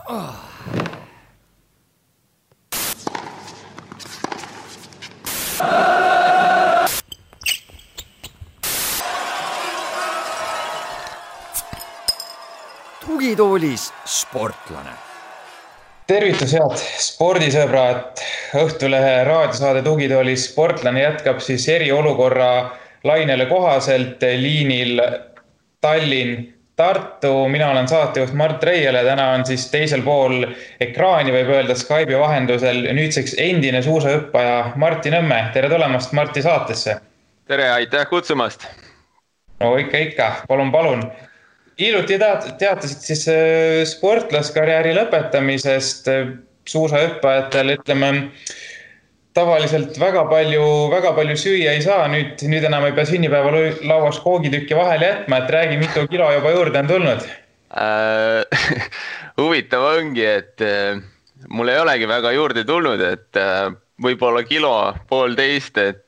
Tugitoolis sportlane. Tervitus head spordisõbrad, Õhtulehe raadiosaade Tugitoolis sportlane jätkab siis eriolukorra lainele kohaselt liinil Tallinn-Tartu. Mina olen saatejuht Mart Reiele, täna on siis teisel pool ekraani, võib öelda Skype'i vahendusel nüüdseks endine suusahüppaja Martti Nõmme. Tere tulemast Martti saatesse. Tere, aitäh kutsumast. No ikka, palun. Hiljuti teatasid siis sportlaskarjääri lõpetamisest suusahüppajatel, ütleme, tavaliselt väga palju süüa ei saa, nüüd enam ei pea sünnipäeval lauas koogitükki vahele jätma, et räägi, mitu kilo juba juurde on tulnud? Huvitav ongi, et mul ei olegi väga juurde tulnud, et võib-olla kilo, poolteist, et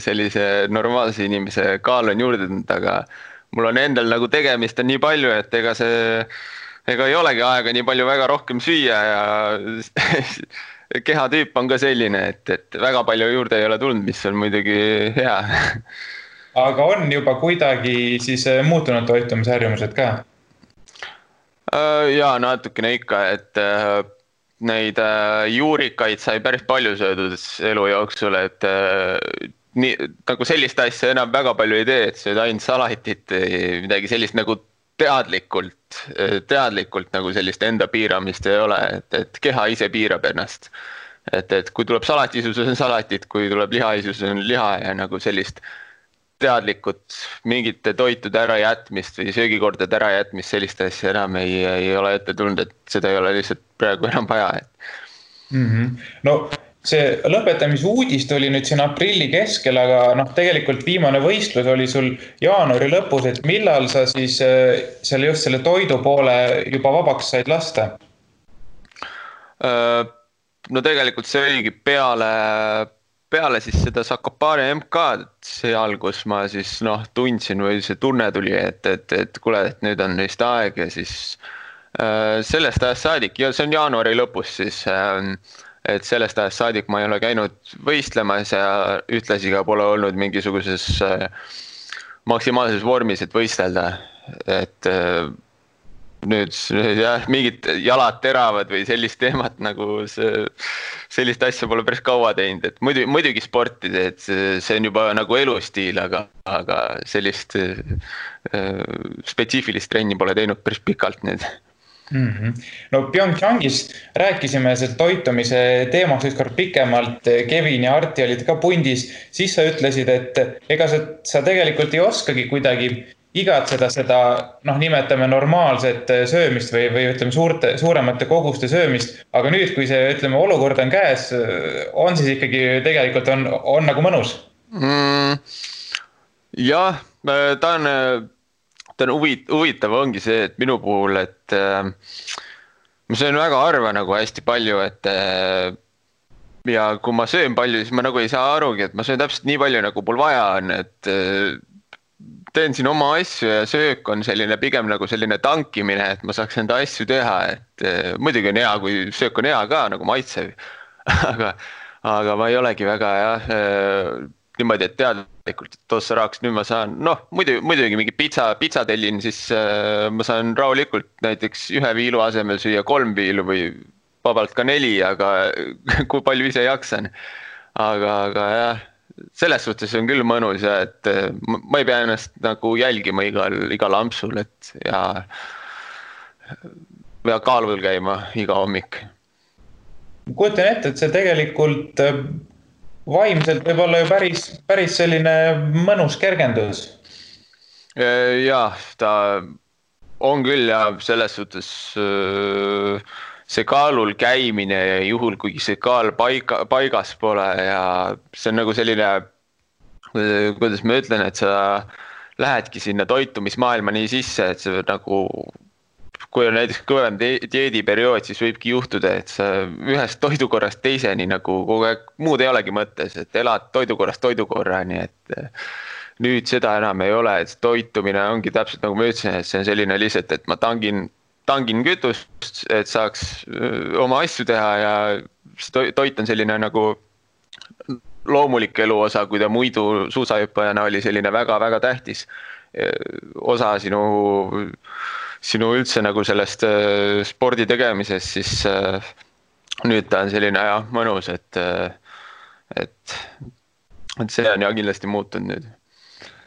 sellise normaalse inimese kaal on juurde tulnud, aga mul on endal nagu tegemist on nii palju, et ega ei olegi aega nii palju väga rohkem süüa ja kehatüüp on ka selline, et väga palju juurde ei ole tulnud, mis on muidugi hea. Aga on juba kuidagi siis muutunud toitumisharjumused ka? Jaa, natukene ikka, et neid juurikaid sai päris palju söödud elu jooksul, et nii, nagu sellist asja enam väga palju ei tee, et see on ainult salatit, midagi sellist nagu teadlikult nagu sellist enda piiramist ei ole, et keha ise piirab ennast. Et kui tuleb salatisus, on salatit, kui tuleb lihaisus, on liha ja nagu sellist teadlikult mingite toitude ärajätmist või söögikordade ärajätmist, sellist asja enam ei ole ette tulnud, et seda ei ole lihtsalt praegu enam vaja. No see lõpetamise uudist oli nüüd siin aprilli keskel, aga tegelikult viimane võistlus oli sul jaanuari lõpus, et millal sa siis just selle toidu poole juba vabaks said lasta? No tegelikult see oligi peale siis seda Sakopane MK-d seal, kus ma siis tundsin või see tunne tuli, et kuule, et nüüd on neist aeg ja siis sellest ajast saadik, ja see on jaanuari lõpus siis, et sellest ajast saadik ma ei ole käinud võistlemas ja ühtlasi ka pole olnud mingisuguses maksimaalses vormis, et võistelda. Et nüüd jah, mingid jalad teravad või sellist teemat nagu sellist asja pole päris kaua teinud. Et muidugi sportida, et see on juba nagu elustiil, aga sellist spetsiifilist trenni pole teinud päris pikalt nüüd. No Pyeongchangis rääkisime selle toitumise teemaks ükskord pikemalt, Kevin ja Arti olid ka pundis, siis sa ütlesid, et ega sa tegelikult ei oskagi kuidagi igatseda seda, nimetame normaalset söömist või ütleme suuremate koguste söömist, aga nüüd, kui see, ütleme, olukord on käes, on siis ikkagi tegelikult on nagu mõnus? Jah, ta on huvitav ongi see, et minu puhul, et ma söön väga harva nagu hästi palju, et ja kui ma söön palju, siis ma nagu ei saa arugi, et ma söön täpselt nii palju, nagu mul vaja on, et teen siin oma asju ja söök on selline pigem nagu selline tankimine, et ma saaks enda asju teha, et muidugi on hea, kui söök on hea ka nagu maitsev, aga ma ei olegi väga niimoodi, et teadlikult, et tossa raaks, nüüd ma saan, muidugi mingi pitsa tellin, siis ma saan rahulikult näiteks 1 viilu asemel süüa 3 viilu või vabalt ka 4, aga kui palju ise jaksan. Aga jah, selles suhtes on küll mõnus ja et ma ei pea ennast nagu jälgima igal ampsul, et ja kaalul käima iga hommik. Kujutan ette, et see tegelikult vaimselt võib olla ju päris selline mõnus kergendus. Jah, ta on küll ja selles suhtes see kaalul käimine ja juhul, kui see kaal paigas pole ja see on nagu selline, kuidas ma ütlen, et sa lähedki sinna toitumismaailma nii sisse, et see nagu kui on näiteks kõvem dieediperiood, siis võibki juhtuda, et sa ühest toidukorrast teiseni nagu kogu aeg muud ei olegi mõttes, et elad toidukorrast toidukorrani, et nüüd seda enam ei ole, et toitumine ongi täpselt nagu ma ütlesin, et see on selline lihtsalt, et ma tangin tangin kütust, et saaks oma asju teha ja see toit on selline nagu loomulik eluosa, kui ta muidu suusahüppajana oli selline väga-väga tähtis osa sinu üldse nagu sellest spordi tegemisest, siis nüüd ta on selline mõnus, et see on kindlasti muutunud nüüd.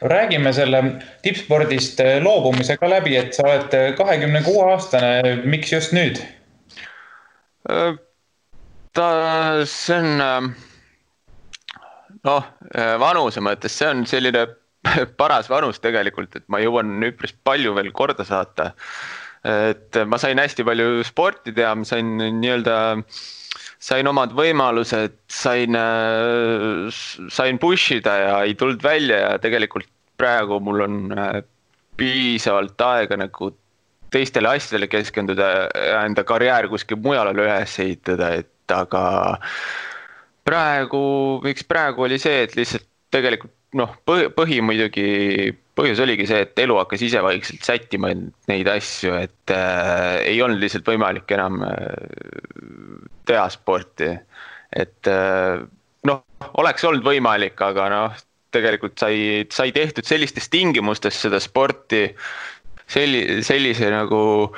Räägime selle tippspordist loobumisega läbi, et sa oled 26-aastane, miks just nüüd? See on, vanuse mõttes, see on selline paras vanus tegelikult, et ma jõuan üpris palju veel korda saata. Et ma sain hästi palju sporti teha, ma sain omad võimalused, sain pushida ja ei tulnud välja ja tegelikult praegu mul on piisavalt aega nagu teistele asjadele keskenduda ja enda karjäär kuskil mujal üles ehitada, et aga miks praegu oli see, et lihtsalt tegelikult põhjus oligi see, et elu hakkas ise vaikselt sättima neid asju, et ei olnud lihtsalt võimalik enam teha sporti, et oleks olnud võimalik, aga tegelikult sai tehtud sellistes tingimustes seda sporti, sellise nagu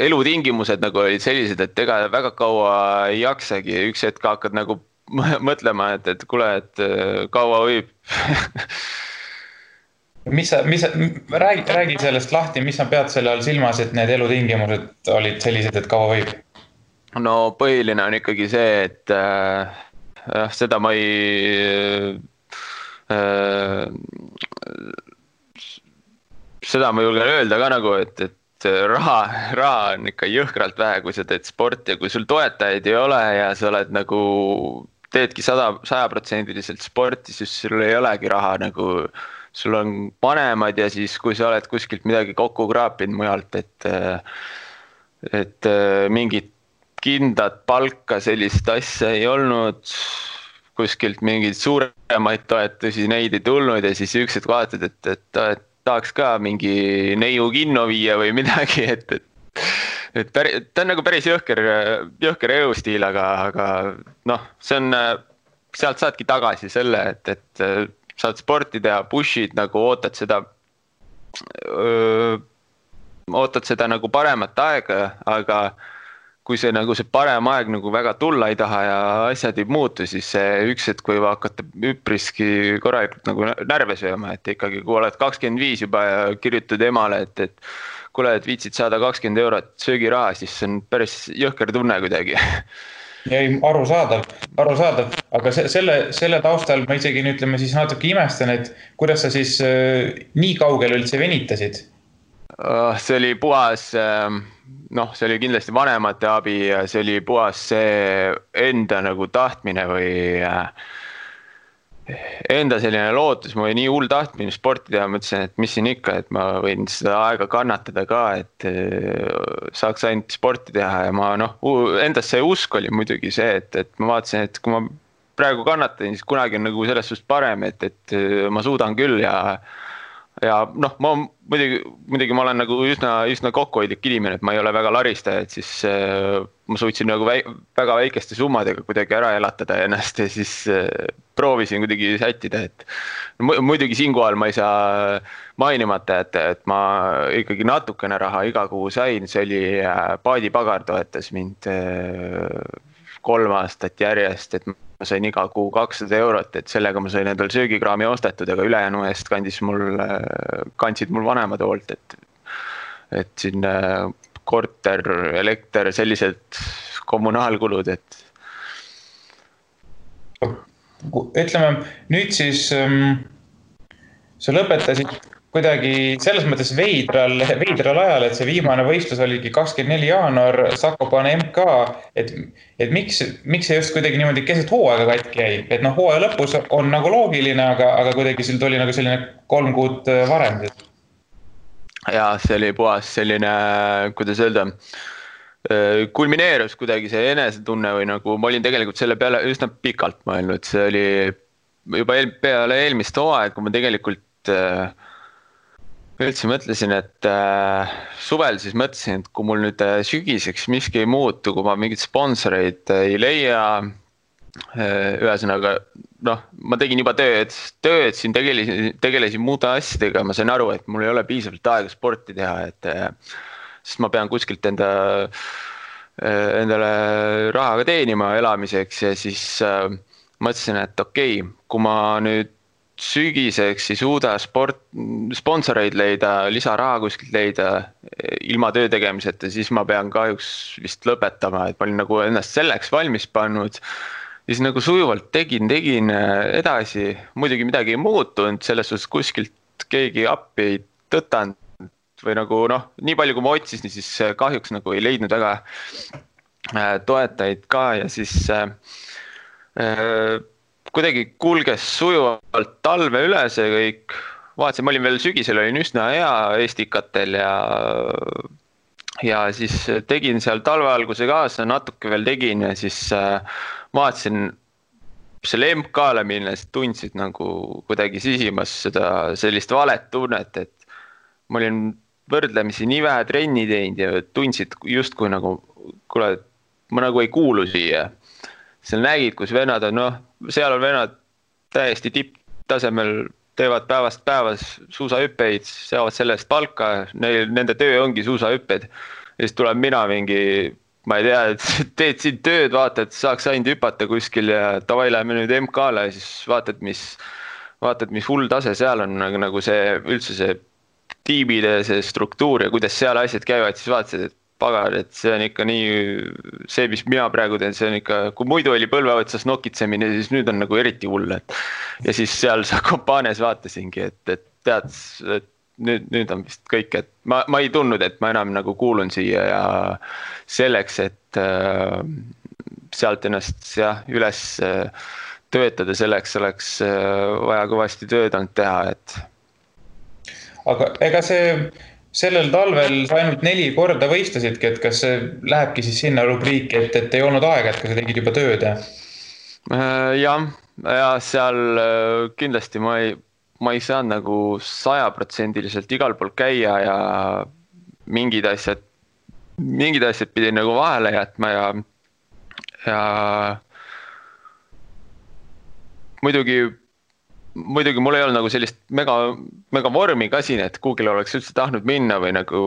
elutingimused nagu olid sellised, et ega väga kaua ei jaksagi, üks hetk hakkad nagu mõtlema, et kuule, et kaua võib. Räägi sellest lahti, mis sa pead selle all silmas, et need elutingimused olid sellised, et kaua võib? No põhiline on ikkagi see, et seda ma julgen öelda ka nagu, et raha on ikka jõhkralt vähe, kui sa teed sporti ja kui sul toetajaid ei ole ja sa oled nagu teedki 100% sporti, siis sul ei olegi raha nagu, sul on vanemad ja siis kui sa oled kuskilt midagi kokku kraapinud mujalt, et mingit kindlat palka sellist asja ei olnud, kuskilt mingeid suuremaid toetusi, neid ei tulnud ja siis üksid vaatad, et tahaks ka mingi neiu kinno viia või midagi, et ta on nagu päris jõhker elustiil, aga see on, sealt saadki tagasi selle, et saad sporti teha, pushid, nagu ootad seda nagu paremat aega, aga kui see parem aeg nagu väga tulla ei taha ja asjad ei muutu, siis see üks hetk võib hakata üpriski korralikult nagu närve sööma, et ikkagi kui oled 25 juba ja kirjutad emale, et kuule, et viitsid saada 20 eurot söögiraha, siis see on päris jõhker tunne kuidagi. Ei, arusaadav, aga selle taustal ma isegi ütleme siis natuke imestan, et kuidas sa siis nii kaugel üldse venitasid? See oli puhas, see oli kindlasti vanemate abi ja see oli puhas see enda nagu tahtmine või enda selline lootus, ma oli nii hull tahtmine sporti teha, mõtlesin, et mis siin ikka, et ma võin seda aega kannatada ka, et saaks ainult sporti teha ja ma endast see usk oli muidugi see, et ma vaatasin, et kui ma praegu kannatan, siis kunagi on nagu selles suhtes parem, et ma suudan küll ja ma muidugi ma olen nagu üsna kokkuhoidlik inimene, et ma ei ole väga laristaja, et siis ma suutsin nagu väga väikeste summadega kuidagi ära elatada ennast ja siis proovisin kuidagi sättida, et muidugi siinkohal ma ei saa mainimata, et ma ikkagi natukene raha iga kuu sain, see oli paadipagar toetas mind 3 aastat järjest, et ma sain iga kuu 200 eurot, et sellega ma sain endal söögikraami ostetud, aga ülejäänu eest kandsid mul vanemad hoolt, et siin korter, elekter, sellised kommunaalkulud, et. Ütleme, nüüd siis sa lõpetasid kuidagi selles mõttes veidral ajal, et see viimane võistlus oligi 24 jaanuar, Zakopane MK, et miks see just kuidagi niimoodi keset hooaega katki jäi? Et hooaja lõpus on nagu loogiline, aga kuidagi sul tuli nagu selline 3 kuud varem. Ja see oli puhas selline, kuidas öelda, kulmineerus kuidagi see enesetunne või nagu ma olin tegelikult selle peale üsna pikalt mõelnud, see oli juba peale eelmist hooaega, kui ma tegelikult üldse mõtlesin, et suvel siis mõtlesin, et kui mul nüüd sügiseks miski ei muutu, kui ma mingit sponsoreid ei leia, ühesõnaga, noh, ma tegin juba tööd siin tegelesin muude asjadega, ma sain aru, et mul ei ole piisavalt aega sporti teha, sest ma pean kuskilt endale rahaga teenima elamiseks ja siis mõtlesin, et okei, kui ma nüüd sügiseks ei suuda sponsoreid leida, lisaraha kuskilt leida ilma töö tegemiseta, siis ma pean kahjuks vist lõpetama, et ma olin nagu ennast selleks valmis pannud. Siis nagu sujuvalt tegin edasi, muidugi midagi ei muutunud, selles suhtes kuskilt keegi appi ei tõtanud või nagu noh, nii palju kui ma otsisin, siis kahjuks nagu ei leidnud väga toetajaid ka ja siis kuidagi kulges sujuvalt talve üle see kõik. Vaatasin, ma olin veel sügisel, olin üsna hea Estikatel ja siis tegin seal talve alguse kaasa, natuke veel tegin ja siis vaatasin selle MK-le minnes, tundsid nagu kuidagi sisimas sellist valet tunnet, et ma olin võrdlemisi nii vähe trenni teinud ja tundsid justkui nagu, kuule, ma nagu ei kuulu siia. Seal nägid, kus vennad on, noh, seal on vennad täiesti tipptasemel, teevad päevast päevas suusahüppeid, saavad sellest palka, nende töö ongi suusahüpped. Ja siis tuleb mina mingi, ma ei tea, et teed siin tööd, vaata, et saaks ainult hüpata kuskil ja tavai läheme nüüd MK-le ja siis vaatad, mis hull tase seal on, nagu see üldse see tiimide see struktuur ja kuidas seal asjad käivad, siis vaatasid, et pagar, et see on ikka nii, see, mis mina praegu teen, see on ikka, kui muidu oli põlve otsas nokitsemine, siis nüüd on nagu eriti hull, et ja siis seal Zakopanes vaatasingi, et tead, et nüüd on vist kõik, et ma ei tundnud, et ma enam nagu kuulun siia ja selleks, et sealt ennast üles töötada, selleks oleks vaja kõvasti tööd olnud teha, et aga ega sellel talvel sa ainult 4 korda võistlesidki, et kas see lähebki siis sinna rubriiki, et ei olnud aega, et ka sa tegid juba tööd? Ja seal kindlasti ma ei saanud nagu 100% igal pool käia ja mingid asjad pidin nagu vahele jätma ja muidugi mul ei olnud nagu sellist mega vormi ka siin, et kuugile oleks üldse tahtnud minna või nagu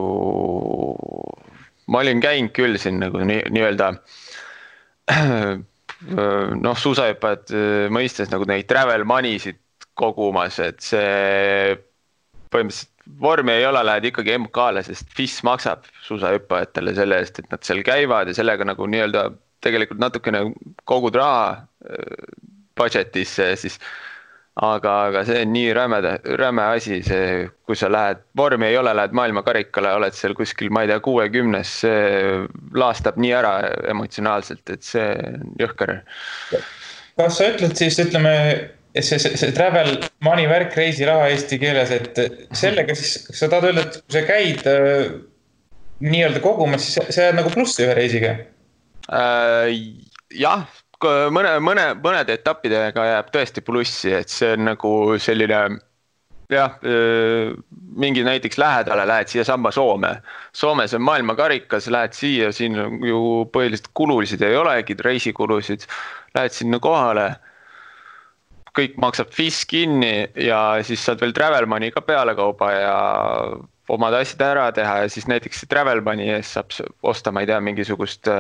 ma olin käinud küll siin nagu nii-öelda noh, suusahüppajad mõistes nagu neid travel money'sid kogumas, et see põhimõtteliselt vormi ei ole, lähed ikkagi MK-le, sest FIS maksab suusahüppajatele selle eest, et nad seal käivad ja sellega nagu nii-öelda tegelikult natukene kogud raha budgetisse siis aga see on nii räme asi, see, kui sa lähed, vormi ei ole, lähed maailmakarikale, oled seal kuskil, ma ei tea, 60, see laastab nii ära emotsionaalselt, et see on jõhker. Kas sa ütled siis, ütleme, see travel money värk, reisiraha eesti keeles, et sellega siis sa tahad öelda, et kui sa käid nii-öelda kogumas, siis sa jääd nagu plussi ühe reisiga? Jah. Mõned etappidega jääb tõesti plussi, et see on nagu selline, jah, mingi näiteks lähedale lähed siia samba Soome. Soomes on maailmakarikas, lähed siia, siin ju põhiliselt kulusid ei olegi, reisikulusid, lähed sinna kohale, kõik maksab FIS kinni ja siis saad veel travel money ka peale kauba ja omad asjad ära teha ja siis näiteks travel money ees saab osta, ma ei tea, mingisugust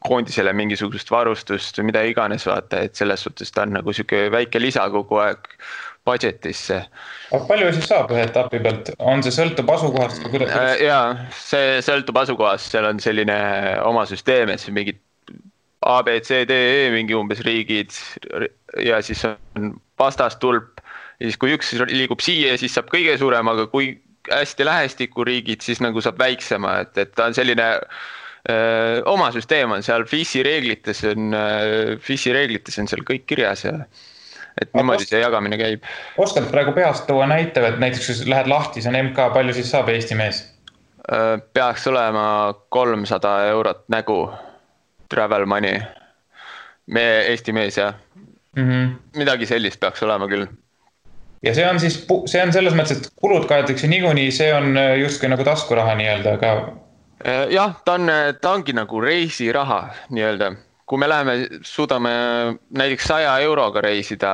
koondisele mingisugust varustust või mida iganes vaata, et selles suhtes ta on nagu siuke väike lisa kogu aeg budgetisse. Aga palju siis saab ühe etapi pealt? On see sõltub asukohast? Jaa, see sõltub asukohast, seal on selline oma süsteem, et see mingid A, B, C, D, E mingi umbes riigid ja siis on vastastulp ja siis kui üks liigub siia, siis saab kõige suurem, aga kui hästi lähestikku riigid, siis nagu saab väiksema, et ta on selline oma süsteem on seal, FIS-i reeglites on seal kõik kirjas ja et niimoodi see jagamine käib. Oskad praegu peast tuua näite, et näiteks kui lähed lahti, see on MK, palju siis saab Eesti mees? Peaks olema 300 eurot nägu travel money. Eesti mees, jah. Midagi sellist peaks olema küll. ja see on siis, see on selles mõttes, et kulud kaetakse niikuinii, see on justkui nagu taskuraha nii-öelda, aga. Jah, ta ongi nagu reisiraha nii-öelda. Kui me läheme, suudame näiteks 100 euroga reisida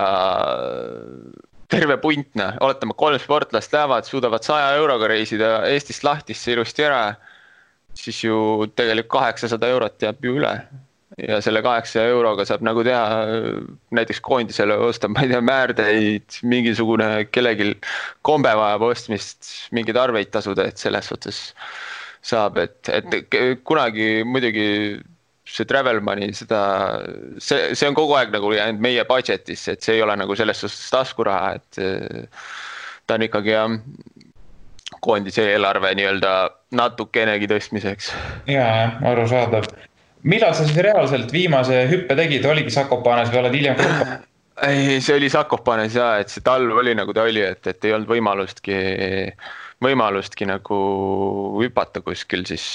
terve puntna, oletame 3 sportlast lähevad, suudavad 100 euroga reisida Eestist Lahtisse ilusti ära, siis ju tegelikult 800 eurot jääb ju üle. Ja selle 800 euroga saab nagu teha näiteks koondisele osta, ma ei tea, määrdeid, mingisugune kellelgi kombe vajab ostmist, mingeid arveid tasuda, et selles suhtes saab, et kunagi muidugi see travel money, see on kogu aeg nagu jäänud meie budgetis, et see ei ole nagu selles suhtes taskuraha, et ta on ikkagi koondise eelarve nii-öelda natukenegi tõstmiseks. Jaa, aru saadav. Millal sa siis reaalselt viimase hüppe tegid, oligi Sakopanes või oled hiljem Kopa? Ei, see oli Sakopanes ja, et see talv oli nagu ta oli, et ei olnud võimalustki nagu hüpata kuskil, siis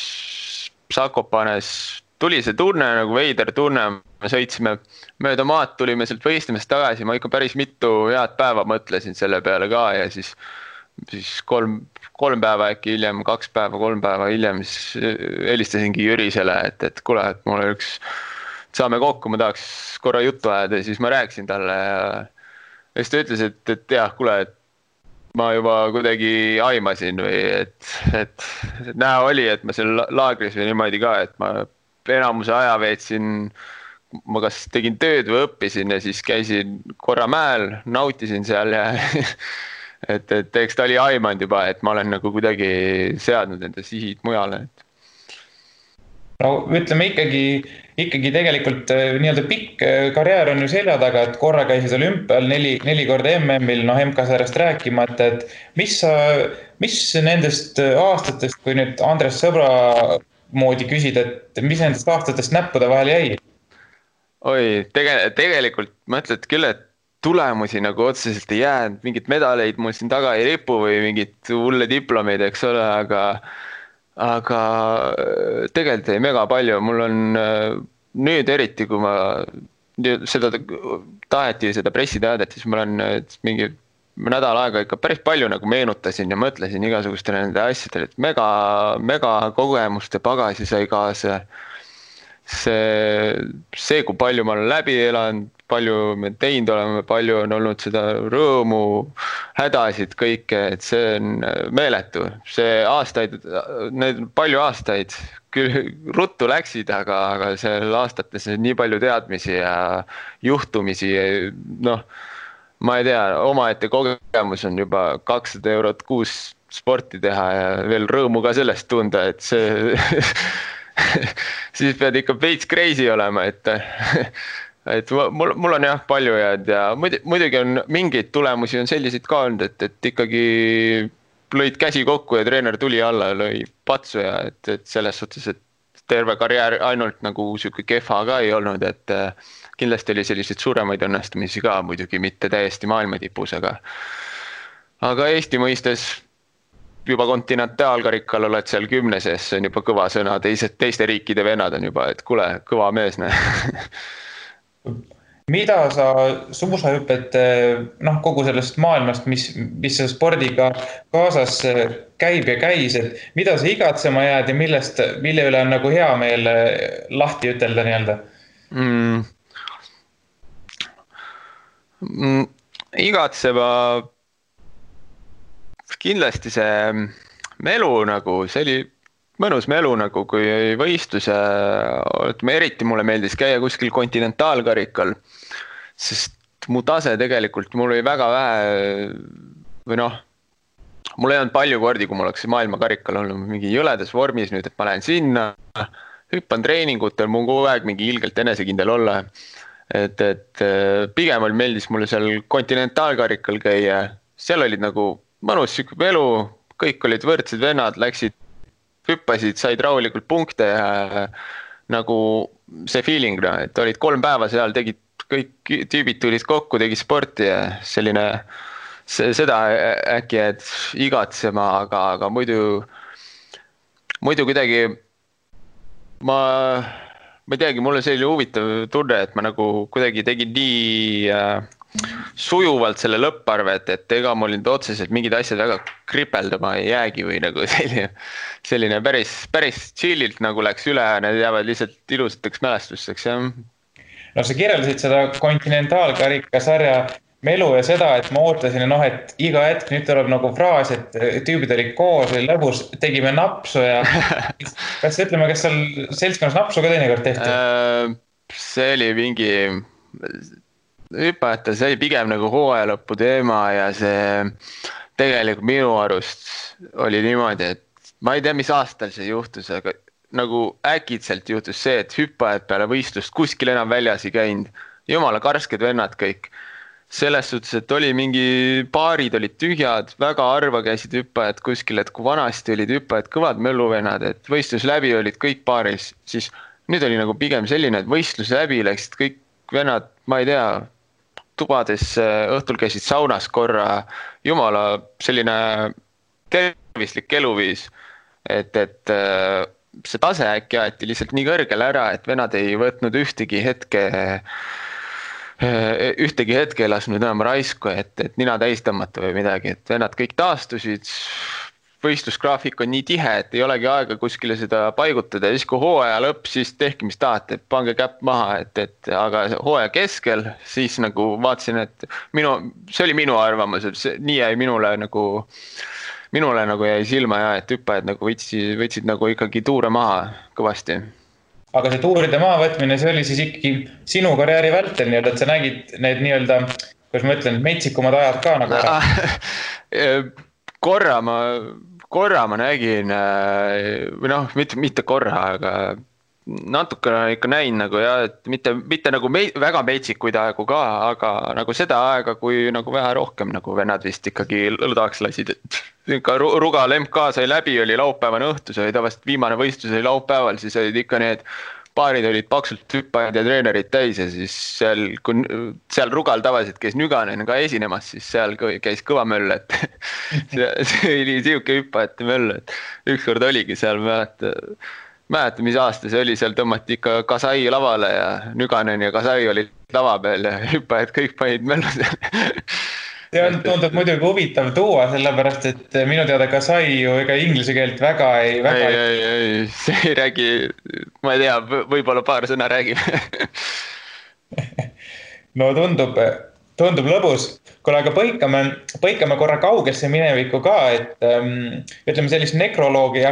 Sakopanes tuli see tunne, nagu veider tunne, me sõitsime mööda maad, tulime sealt võistlemist tagasi, ma ikka päris mitu head päeva mõtlesin selle peale ka ja siis 3 päeva äkki hiljem, 2 päeva, 3 päeva hiljem, siis helistasingi Jürisele, et kuule, et mulle saame kokku, ma tahaks korra juttu ajada ja siis ma rääkisin talle ja siis ta ütles, et jah, kuule, et ma juba kuidagi aimasin või et näha oli, et ma seal laagris või niimoodi ka, et ma enamuse aja veetsin, ma kas tegin tööd või õppisin ja siis käisin korra mäel, nautisin seal ja et eks ta oli aimanud juba, et ma olen nagu kuidagi seadnud enda sihid mujale. No ütleme ikkagi tegelikult nii-öelda pikk karjäär on ju selja taga, et korra käisid olümpial 4 korda MM-il, MK-sarjast rääkimata, et mis nendest aastatest, kui nüüd Andres Sõbra moodi küsid, et mis nendest aastatest näppude vahel jäi? Oi, tegelikult mõtled küll, et tulemusi nagu otseselt ei jäänud, mingid medaleid mul siin taga ei ripu või mingid hulle diplomeid, eks ole, aga tegelikult ei mega palju. Mul on nüüd eriti, kui ma taheti seda pressiteadet, siis ma olen mingi nädal aega ikka päris palju nagu meenutasin ja mõtlesin igasugustele nende asjadele, et mega kogemuste pagasi sai kaasa. See, kui palju ma olen läbi elanud, palju me teinud oleme, palju on olnud seda rõõmu, hädasid kõike, et see on meeletu. See aastaid, need palju aastaid küll ruttu läksid, aga seal aastates nii palju teadmisi ja juhtumisi, ma ei tea, omaette kogemus on juba 200 eurot kuus sporti teha ja veel rõõmu ka sellest tunda, et see siis pead ikka veits crazy olema, et mul on jah palju jääd ja muidugi on mingeid tulemusi on selliseid ka olnud, et ikkagi lõid käsi kokku ja treener tuli alla ja lõi patsu ja et selles suhtes, et terve karjäär ainult nagu siuke kehva ka ei olnud, et kindlasti oli selliseid suuremaid õnnestumisi ka, muidugi mitte täiesti maailma tipus, aga Eesti mõistes juba kontinentaalkarikal oled seal 10 sees, see on juba kõva sõna, teiste riikide vennad on juba, et kuule, kõva mees. Mida sa suusahüpet, kogu sellest maailmast, mis see spordiga kaasas käib ja käis, et mida sa igatsema jääd ja mille üle on nagu hea meel lahti ütelda nii-öelda? Igatsema kindlasti see melu nagu, see oli mõnus melu nagu, kui võistlus ja eriti mulle meeldis käia kuskil kontinentaalkarikal, sest mu tase tegelikult, mul oli väga vähe või mul ei olnud palju kordi, kui mul oleks maailmakarikal olnud mingi jõledas vormis nüüd, et ma lähen sinna, hüppan treeningutel, mul kogu aeg mingi ilgelt enesekindel olla, et pigem meeldis mulle seal kontinentaalkarikal käia, seal olid nagu mõnus siuke elu, kõik olid võrdsed vennad, läksid, hüppasid, said rahulikult punkte ja nagu see feeling, et olid 3 päeva seal, tegid, kõik tüübid tulid kokku, tegid sporti ja selline, seda äkki, et igatsema, aga muidu kuidagi ma ei teagi, mul on selline huvitav tunne, et ma nagu kuidagi tegin nii sujuvalt selle lõpparve, et ega mul nüüd otseselt mingid asjad väga kripeldama ei jäägi või nagu selline päris chillilt nagu läks üle ja need jäävad lihtsalt ilusateks mälestusteks, jah. No sa kirjeldasid seda kontinentaalkarikasarja melu ja seda, et ma ootasin, et iga hetk nüüd tuleb nagu fraas, et tüübid olid koos, oli lõbus, tegime napsu ja kas seal seltskonnas napsu ka teinekord tehti? See oli mingi hüpajate, see oli pigem nagu hooaja lõpu teema ja see tegelikult minu arust oli niimoodi, et ma ei tea, mis aastal see juhtus, aga nagu äkitselt juhtus see, et hüppajad peale võistlust kuskil enam väljas ei käinud. Jumala karsked vennad kõik. Selles suhtes, et oli mingi paarid olid tühjad, väga harva käisid hüppajad kuskil, et kui vanasti olid hüppajad kõvad mölluvennad, et võistlus läbi olid kõik paaris, siis nüüd oli nagu pigem selline, et võistlus läbi läksid kõik vennad, ma ei tea, tubades õhtul käisid saunas korra, jumala selline tervislik eluviis, et see tase äkki aeti lihtsalt nii kõrgele ära, et vennad ei võtnud ühtegi hetke ei lasknud enam raisku, et nina täis tõmmata või midagi, et vennad kõik taastusid, võistlusgraafik on nii tihe, et ei olegi aega kuskile seda paigutada ja siis kui hooaja lõpp, siis tehke mis tahate, pange käpp maha, aga hooaja keskel siis nagu vaatasin, et see oli minu arvamus, et nii jäi minule nagu jäi silma ja et hüppajad nagu võtsid nagu ikkagi tuure maha kõvasti. Aga see tuuride maavõtmine, see oli siis ikkagi sinu karjääri vältel, et sa nägid need kuidas ma ütlen, metsikumad ajad ka nagu ära? Korra ma nägin, või mitte korra, aga natukene ikka näin nagu jah, et mitte nagu väga metsikuid aegu ka, aga nagu seda aega, kui nagu vähe rohkem nagu vennad vist ikkagi lõdaks lasid, et Rugal MK sai läbi, oli laupäevane õhtu, see oli tavaliselt viimane võistlus oli laupäeval, siis olid ikka need paarid olid paksult hüppajad ja treenerid täis ja siis seal Rugal tavaliselt käis Nüganen ka esinemas, siis seal käis kõva möll, et see oli siuke hüppajate möll, et ükskord oligi seal, mäleta, mis aasta see oli, seal tõmmati ikka Kasai lavale ja Nüganen ja Kasai olid lava peal ja hüppajad kõik panid möllu seal. See on tundub muidugi huvitav tuua, sellepärast, et minu teada Kasai ju ega inglise keelt väga ei... Ei, see ei räägi, ma ei tea, võib-olla paar sõna räägib. No tundub lõbus. Kuule, aga põikame korra kaugesse minevikku ka, et ütleme sellist nekroloogi ei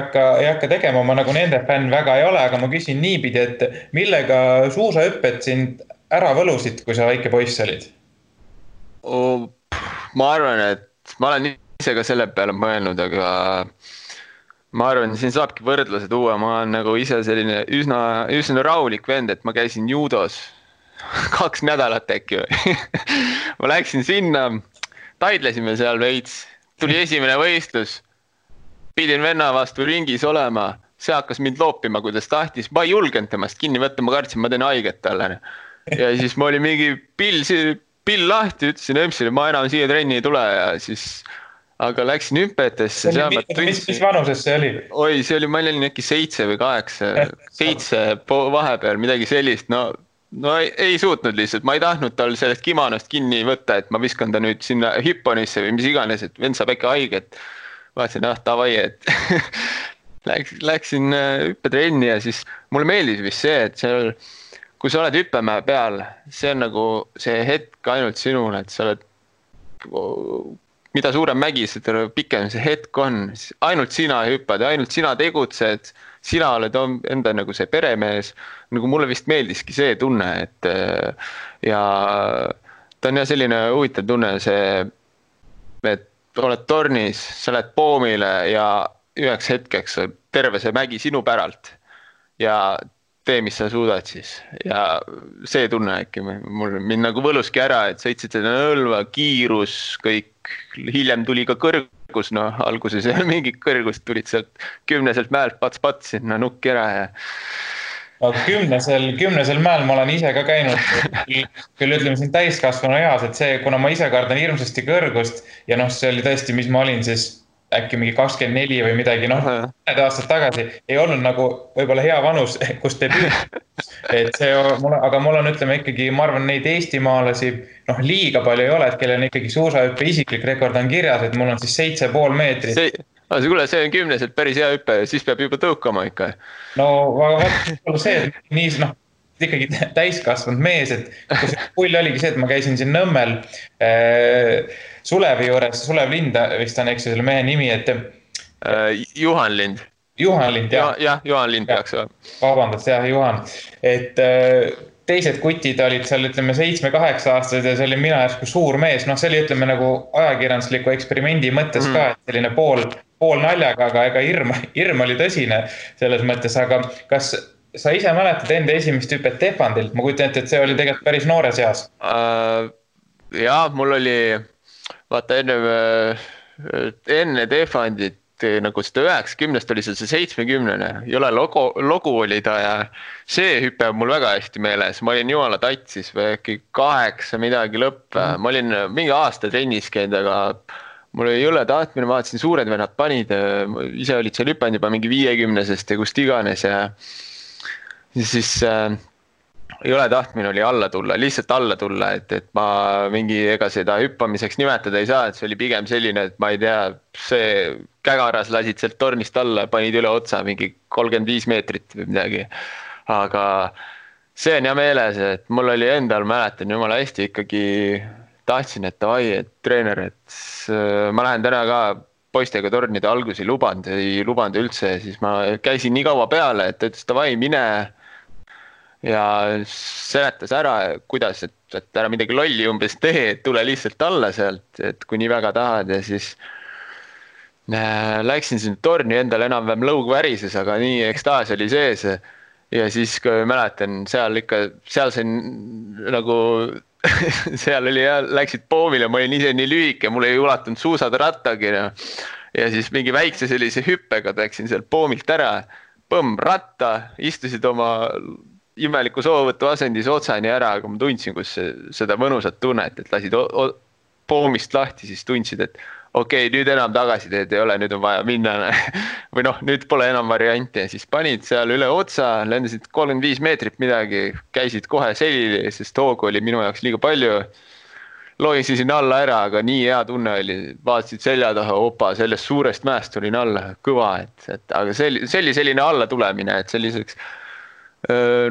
hakka tegema, ma nagu nende fänn väga ei ole, aga ma küsin niipidi, et millega suusahüpped sind ära võlusid, kui sa väike poiss olid? Ma arvan, et ma olen ise ka selle peale mõelnud, aga ma arvan, siin saabki võrdluse tuua, ma olen nagu ise selline üsna rahulik vend, et ma käisin judos 2 nädalat äkki või. Ma läksin sinna, taidlesime seal veits, tuli esimene võistlus, pidin venna vastu ringis olema, see hakkas mind loopima, kuidas tahtis, ma ei julgenud temast kinni võtta, ma kartsin, ma teen haiget talle. Ja siis ma oli mingi pill lahti, ütlesin Emsile, ma enam siia trenni ei tule ja siis, aga läksin hüppetesse. Mis vanuses see oli? Oi, see oli, ma olin äkki 7 või 8, 7 vahepeal, midagi sellist, no ei suutnud lihtsalt, ma ei tahtnud tal sellest kimonost kinni võtta, et ma viskan ta nüüd sinna hipponisse või mis iganes, et vend saab äkki haiget. Vaatasin, tavai, et läksin hüppetrenni ja siis mulle meeldis vist see, et seal kui sa oled hüppemäe peal, see on nagu see hetk ainult sinule, et sa oled, mida suurem mägi, seda pikem see hetk on, ainult sina hüppad ja ainult sina tegutsed, sina oled enda nagu see peremees, nagu mulle vist meeldiski see tunne, et ja ta on jah selline huvitav tunne, see, et oled tornis, sa lähed poomile ja üheks hetkeks terve see mägi sinu päralt ja tee, mis sa suudad siis. Ja see tunne äkki mind nagu võluski ära, et sõitsid seda nõlva, kiirus, kõik, hiljem tuli ka kõrgus, alguses ei ole mingit kõrgust, tulid sealt 10 mäelt pats sinna nukki ära ja... Kümnesel mäel ma olen ise ka käinud, küll ütleme siin täiskasvanu eas, et see, kuna ma ise kardan hirmsasti kõrgust ja see oli tõesti, mis ma olin siis äkki mingi 24 või midagi, mõned aastad tagasi ei olnud nagu võib-olla hea vanus, kus et see, aga mul on, ütleme ikkagi, ma arvan, neid eestimaalasi, liiga palju ei ole, et kellel on ikkagi suusahüppe isiklik rekord on kirjas, et mul on siis 7,5 meetrit. Kuule, see on 10, päris hea hüppe, siis peab juba tõukama ikka. No, aga vaat see, et nii, ikkagi täiskasvanud mees, et kus pull oligi see, et ma käisin siin Nõmmel Sulevi juures, Sulev Lind vist on, eks selle mehe nimi, et Juhan Lind. Juhan Lind, jah. Jah, Juhan Lind peaks olema. Vabandust, jah, Juhan. Et teised kutid olid seal, ütleme, 7-8 aastased ja see oli mina järsku suur mees. See oli, ütleme, nagu ajakirjandusliku eksperimendi mõttes ka, et selline pool naljaga, aga ega hirm oli tõsine selles mõttes. Aga kas sa ise mäletad enda esimest hüpet Tefandilt? Ma kujutan ette, et see oli tegelikult päris noores eas. Jaa, mul oli, vaata enne Tefandit, nagu seda 90 oli see 70, jõle logu oli ta ja see hüpe on mul väga hästi meeles. Ma olin jumala tatsis või äkki 8 midagi lõpp. Ma olin mingi aasta trennis käinud, aga mul oli jõle tahtmine, vaatasin suured vennad panid, ise olid seal hüpanud juba mingi 50-sest ja kust iganes ja siis jõle tahtmine oli alla tulla, lihtsalt alla tulla, et ma mingi ega seda hüppamiseks nimetada ei saa, et see oli pigem selline, et ma ei tea, see kägaras lasid sealt tornist alla, panid üle otsa mingi 35 meetrit või midagi. Aga see on hea meeles, et mul oli endal, mäletan jumala hästi ikkagi tahtsin, et davai, et treener, et ma lähen täna ka poistega tornide algusi ei lubanud üldse, siis ma käisin nii kaua peale, et ütles davai, mine ja seletas ära, kuidas, et ära midagi lolli umbes tee, et tule lihtsalt alla sealt, et kui nii väga tahad ja siis läksin sinna torni endal enam-vähem lõug värises, aga nii ekstaas oli sees ja siis kui mäletan, seal sain nagu seal oli ja läksid poomile, ma olin ise nii lühike, mul ei ulatunud suusad rattagi ja siis mingi väikse sellise hüppega läksin seal poomilt ära, põmm ratta, istusid oma imeliku soovõtu asendis otsani ära, aga ma tundsin, kus seda mõnusat tunnet, et lasid poomist lahti, siis tundsid, et okei, nüüd enam tagasi teed ei ole, nüüd on vaja minna või nüüd pole enam varianti ja siis panid seal üle otsa, lendasid 35 meetrit midagi, käisid kohe selili, sest hoogu oli minu jaoks liiga palju, loisisin alla ära, aga nii hea tunne oli, vaatasid selja taha, opa, sellest suurest mäest tulin alla, kõva, aga see oli selline alla tulemine, et selliseks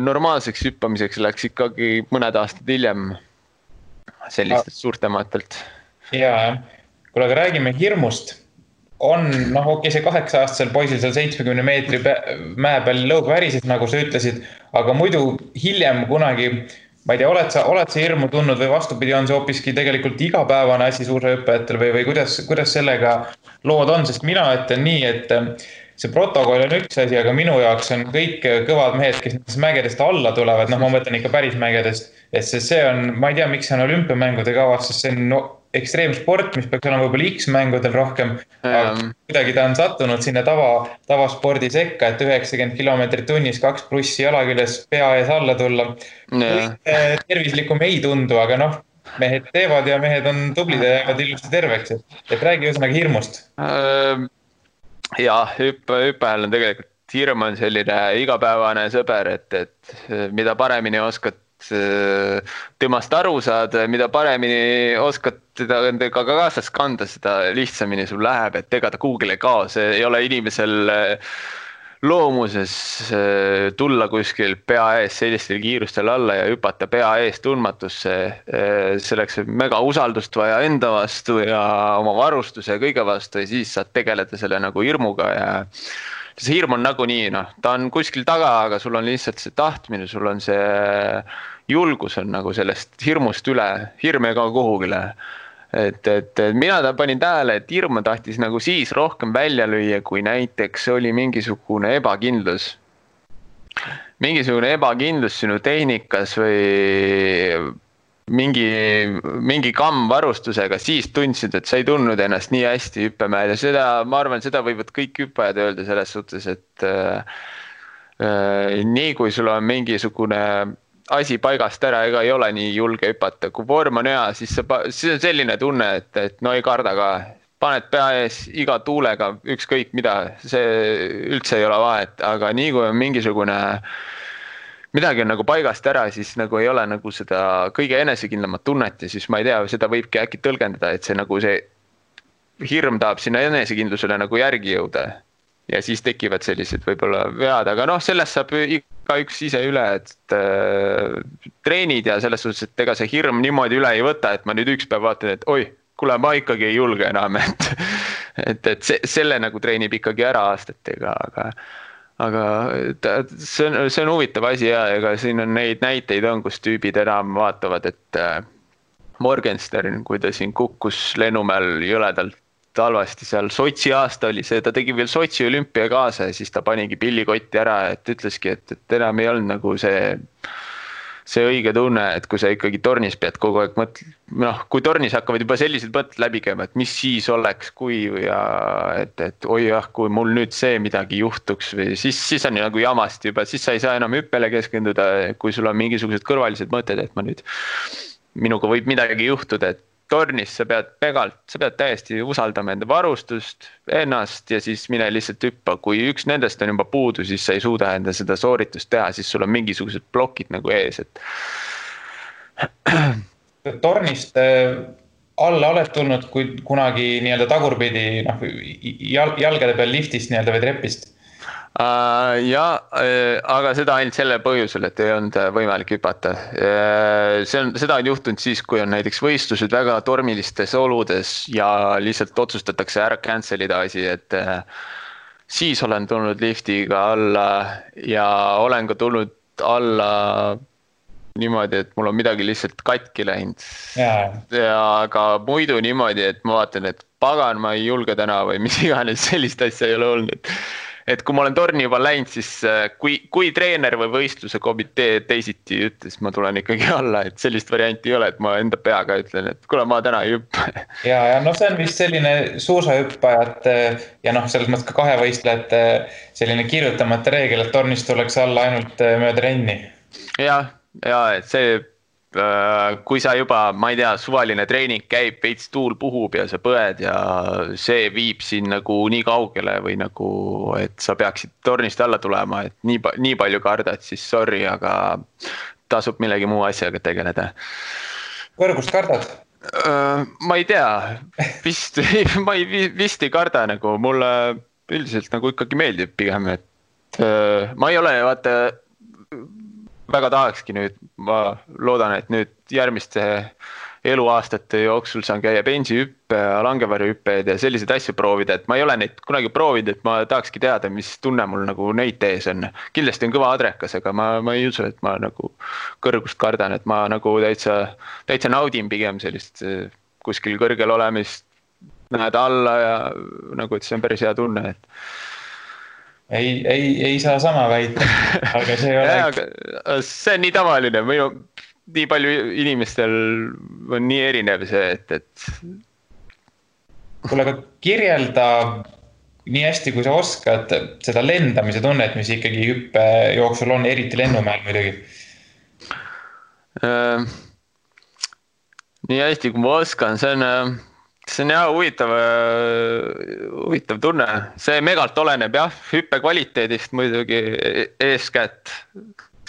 normaalseks hüppamiseks läks ikkagi mõned aastad hiljem sellistelt suurtematelt. Jaa, kuule, aga räägime hirmust. On, okei, see 8-aastasel poisil seal 70 meetri mäe peal lõug värises, nagu sa ütlesid, aga muidu hiljem kunagi, ma ei tea, oled sa hirmu tundnud või vastupidi, on see hoopiski tegelikult igapäevane asi suusahüppajatel või kuidas sellega lood on, sest mina ütlen nii, et see protokoll on üks asi, aga minu jaoks on kõik kõvad mehed, kes nendest mägedest alla tulevad, ma mõtlen ikka päris mägedest, et see on, ma ei tea, miks see on olümpiamängude kavas, sest see on ekstreemsport, mis peaks olema võib-olla X-mängudel rohkem, aga kuidagi ta on sattunud sinna tavaspordi sekka, et 90 kilomeetrit tunnis, 2+ jala küljes, pea ees alla tulla. Tervislikum ei tundu, aga mehed teevad ja mehed on tublid ja jäävad ilusti terveks, et räägi ühesõnaga hirmust. Jaa, hüppajal on tegelikult hirm on selline igapäevane sõber, et mida paremini oskad temast aru saad, mida paremini oskad teda endaga kaasas kanda, seda lihtsamini sul läheb, et ega ta kuhugile ei kao, see ei ole inimesel loomuses tulla kuskil pea ees sellistel kiirustel alla ja hüpata pea ees tundmatusse, selleks mega usaldust vaja enda vastu ja oma varustuse ja kõige vastu ja siis saad tegeleda selle nagu hirmuga ja see hirm on nagunii, ta on kuskil taga, aga sul on lihtsalt see tahtmine, sul on see julgus on nagu sellest hirmust üle, hirm ei kao kuhugile. Et mina panin tähele, et hirm tahtis nagu siis rohkem välja lüüa, kui näiteks oli mingisugune ebakindlus. Mingisugune ebakindlus sinu tehnikas või mingi kamm varustusega, siis tundsid, et sa ei tundnud ennast nii hästi hüppemäel ja seda, ma arvan, seda võivad kõik hüppajad öelda selles suhtes, et nii kui sul on mingisugune asi paigast ära, ega ei ole nii julge hüpata. Kui vorm on hea, siis on selline tunne, et no ei karda ka. Paned pea ees iga tuulega, ükskõik mida, see üldse ei ole vahet, aga nii kui on mingisugune midagi on nagu paigast ära, siis nagu ei ole nagu seda kõige enesekindlamat tunnet ja siis ma ei tea, seda võibki äkki tõlgendada, et see nagu see hirm tahab sinna enesekindlusele nagu järgi jõuda. Ja siis tekivad sellised võib-olla vead, aga noh, sellest saab igaüks ise üle, et treenid ja selles suhtes, et ega see hirm niimoodi üle ei võta, et ma nüüd üks päev vaatan, et oi, kuule, ma ikkagi ei julge enam, et selle nagu treenib ikkagi ära aastatega, aga see on huvitav asi ja ega siin on neid näiteid on, kus tüübid enam vaatavad, et Morgenstern, kui ta siin kukkus lennumäel jõledalt halvasti seal Sotši aasta oli see, ta tegi veel Sotši olümpia kaasa ja siis ta panigi pillikotti ära, et ütleski, et enam ei olnud nagu see õige tunne, et kui sa ikkagi tornis pead kogu aeg noh, kui tornis hakkavad juba sellised mõtted läbi käima, et mis siis oleks, kui ja et oi jah, kui mul nüüd see midagi juhtuks või siis on nagu jamast juba, siis sa ei saa enam hüppele keskenduda, kui sul on mingisugused kõrvalised mõtted, et minuga võib midagi juhtuda, et tornis sa pead täiesti usaldama enda varustust, ennast ja siis mine lihtsalt hüppa. Kui üks nendest on juba puudu, siis sa ei suuda enda seda sooritust teha, siis sul on mingisugused plokid nagu ees. Tornist alla oled tulnud kunagi nii-öelda tagurpidi jalgade peal liftist nii-öelda või trepist? Aga seda ainult selle põhjusel, et ei olnud võimalik hüpata. Seda on juhtunud siis, kui on näiteks võistlused väga tormilistes oludes ja lihtsalt otsustatakse ära cancelida asi, et siis olen tulnud liftiga alla ja olen ka tulnud alla niimoodi, et mul on midagi lihtsalt katki läinud. Aga muidu niimoodi, et ma vaatan, et pagan, ma ei julge täna või mis iganes sellist asja ei ole olnud. Et kui ma olen torni juba läinud, siis kui treener või võistluse komitee teisiti ütles, ma tulen ikkagi alla, et sellist varianti ei ole, et ma enda peaga ütlen, et kuule, ma täna ei hüppa. Ja see on vist selline suusahüppajad ja selles mõttes ka kahevõistlejate selline kirjutamata reegel, et tornist tuleks alla ainult mööda renni. Ja, et see kui sa juba, ma ei tea, suvaline treening käib, veits tuul puhub ja sa põed ja see viib siin nagu nii kaugele või nagu, et sa peaksid tornist alla tulema, et nii palju kardad, siis sorry, aga tasub millegi muu asjaga tegeleda. Kõrgust kardad? Ma ei tea, vist ei karda nagu, mulle üldiselt nagu ikkagi meeldib pigem, et ma ei ole, vaata, väga tahakski nüüd, ma loodan, et nüüd järgmiste eluaastate jooksul saan käia bensihüppe ja langevarjuhüppeid ja selliseid asju proovida, et ma ei ole neid kunagi proovinud, et ma tahakski teada, mis tunne mul nagu neid tees on. Kindlasti on kõva adrekas, aga ma ei usu, et ma nagu kõrgust kardan, et ma nagu täitsa naudin pigem sellist kuskil kõrgel olemist, näed alla ja nagu, et see on päris hea tunne, et Ei saa sama väita, aga see ole... See on nii tavaline, nii palju inimestel on nii erinev see, et... Kuule, aga kirjelda nii hästi, kui sa oskad seda lendamise tunnet, mis ikkagi hüppe jooksul on, eriti lennumäel muidugi. Nii hästi, kui ma oskan, see on jah huvitav tunne. See megalt oleneb jah, hüppe kvaliteedist muidugi eeskätt.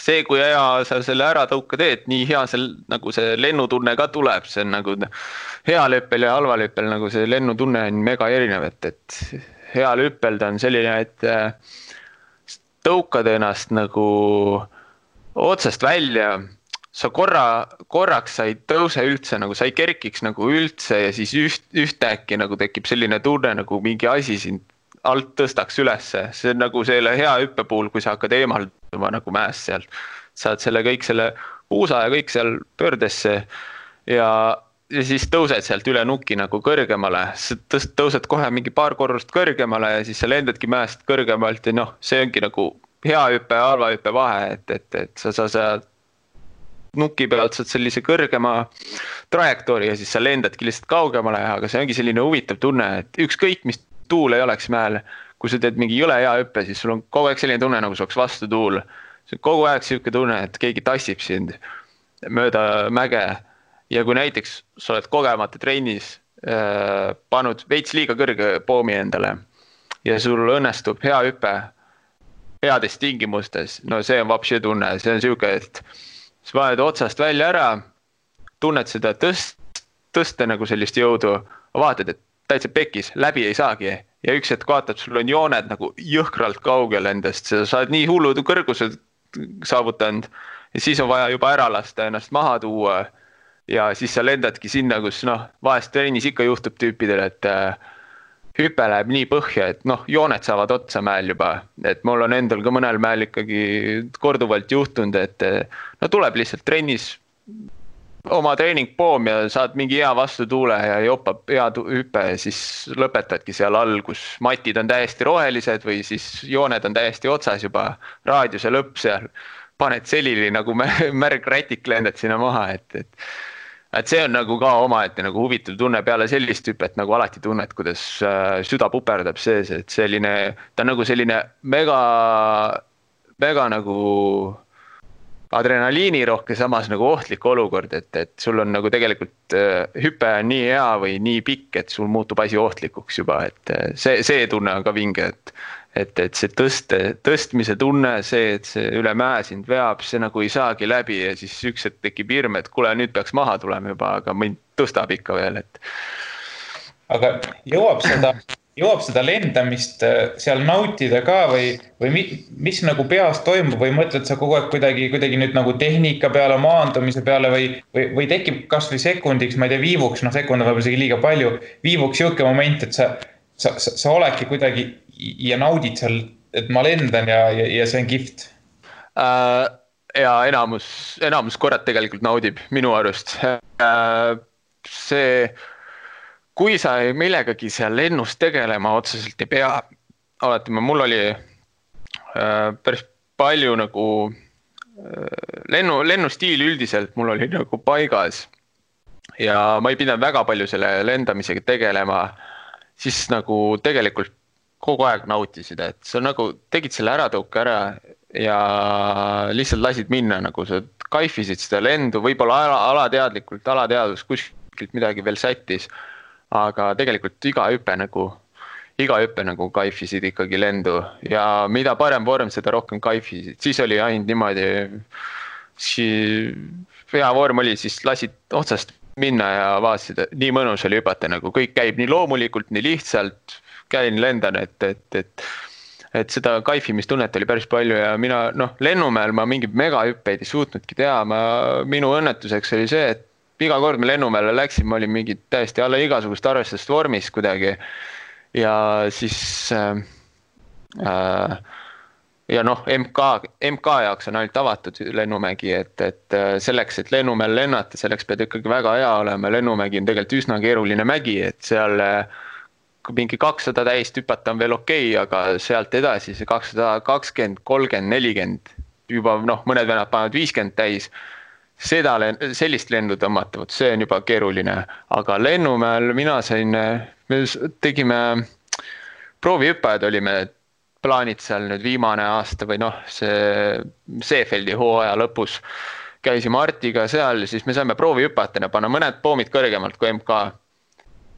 See, kui hea sa selle ära tõuka teed, nii hea nagu see lennutunne ka tuleb. See on nagu heal hüppel ja halval hüppel, nagu see lennutunne on mega erinev, et heal hüppel ta on selline, et tõukad ennast nagu otsast välja. Sa korraks sa ei tõuse üldse, nagu sa ei kerkiks nagu üldse ja siis ühtäkki nagu tekib selline tunne, nagu mingi asi sind alt tõstaks ülesse. See on nagu selle hea hüppe puhul, kui sa hakkad eemalduma nagu mäest sealt. Saad kõik selle puusa ja kõik seal pöördesse ja siis tõused sealt üle nuki nagu kõrgemale. Tõused kohe mingi paar korrust kõrgemale ja siis sa lendadki mäest kõrgemalt ja see ongi nagu hea hüppe ja halva hüppe vahe, et sa nuki pealt saad sellise kõrgema trajektoori ja siis sa lendadki lihtsalt kaugemale, aga see ongi selline huvitav tunne, et ükskõik mis tuul ei oleks mäel, kui sa teed mingi jõle hea hüppe, siis sul on kogu aeg selline tunne, nagu sa oleks vastu tuul. See on kogu aeg selline tunne, et keegi tassib sind mööda mäge ja kui näiteks sa oled kogemata trennis pannud veits liiga kõrge poomi endale ja sul õnnestub hea hüpe heades tingimustes, no see on vapsi tunne, see on siuke, et sa paned otsast välja ära, tunned seda tõsta nagu sellist jõudu, vaatad, et täitsa pekis, läbi ei saagi ja üks hetk vaatad, sul on jooned nagu jõhkralt kaugel endast, sa oled nii hullud kõrgused saavutanud ja siis on vaja juba ära lasta ennast maha tuua ja siis sa lendadki sinna, kus vahest trennis ikka juhtub tüüpidel, et hüpe läheb nii põhja, et jooned saavad otsa mäel juba, et mul on endal ka mõnel mäel ikkagi korduvalt juhtunud, et tuleb lihtsalt trennis oma treeningpoom ja saad mingi hea vastutuule ja jopab hea hüpe ja siis lõpetadki seal all, kus matid on täiesti rohelised või siis jooned on täiesti otsas juba, raadiuse lõpp seal, paned selili nagu märgrätik lendad sinna maha, et see on nagu ka omaette nagu huvitav tunne peale sellist hüpet, nagu alati tunned, kuidas süda puperdab sees, et ta on nagu selline mega nagu adrenaliini rohke, samas nagu ohtlik olukord, et sul on nagu tegelikult hüpe on nii hea või nii pikk, et sul muutub asi ohtlikuks juba, et see tunne on ka vinge, et see tõstmise tunne, see, et see üle mäe sind veab, see nagu ei saagi läbi ja siis üks hetk tekib hirm, et kuule, nüüd peaks maha tulema juba, aga mind tõstab ikka veel, et. Aga jõuab seda lendamist seal nautida ka või mis nagu peas toimub või mõtled sa kogu aeg kuidagi nüüd nagu tehnika peale, maandumise peale või tekib kas või sekundiks, ma ei tea, viivuks, sekund on võib-olla isegi liiga palju, viivuks jõuke moment, et sa oledki kuidagi ja naudid seal, et ma lendan ja see on kihvt. Ja enamus korrad tegelikult naudib minu arust. Kui sa millegagi seal lennus tegelema otseselt ei pea, alati mul oli päris palju nagu lennustiil üldiselt mul oli nagu paigas ja ma ei pidanud väga palju selle lendamisega tegelema, siis nagu tegelikult kogu aeg nautisid, et sa nagu tegid selle äratõuke ära ja lihtsalt lasid minna, nagu sa kaifisid seda lendu, võib-olla alateadus kuskilt midagi veel sättis. Aga tegelikult iga hüpe nagu kaifisid ikkagi lendu ja mida parem vorm, seda rohkem kaifisid. Siis oli ainult niimoodi, hea vorm oli, siis lasid otsast minna ja vaatasid, nii mõnus oli hüpata, nagu kõik käib nii loomulikult, nii lihtsalt, käin lendan, et seda kaifimistunnet oli päris palju ja mina, lennumäel ma mingi megahüppeid ei suutnudki teha, minu õnnetuseks oli see, et iga kord me lennumäele läksin, ma olin mingi täiesti alla igasugust arvestust vormis kuidagi ja siis ja MK jaoks on ainult avatud lennumägi, et selleks, et lennumäel lennata, selleks pead ikkagi väga hea olema, lennumägi on tegelikult üsna keeruline mägi, et seal mingi 200 täist hüpata on veel okei, aga sealt edasi see 220, 30, 40 juba mõned vennad panevad 50 täis, sellist lendu tõmmata, see on juba keeruline, aga lennumäel me tegime proovihüppajad, olime plaanid seal nüüd viimane aasta või see Seefeldi hooaja lõpus käisime Artiga seal, siis me saime proovihüppajatena panna mõned poomid kõrgemalt kui MK.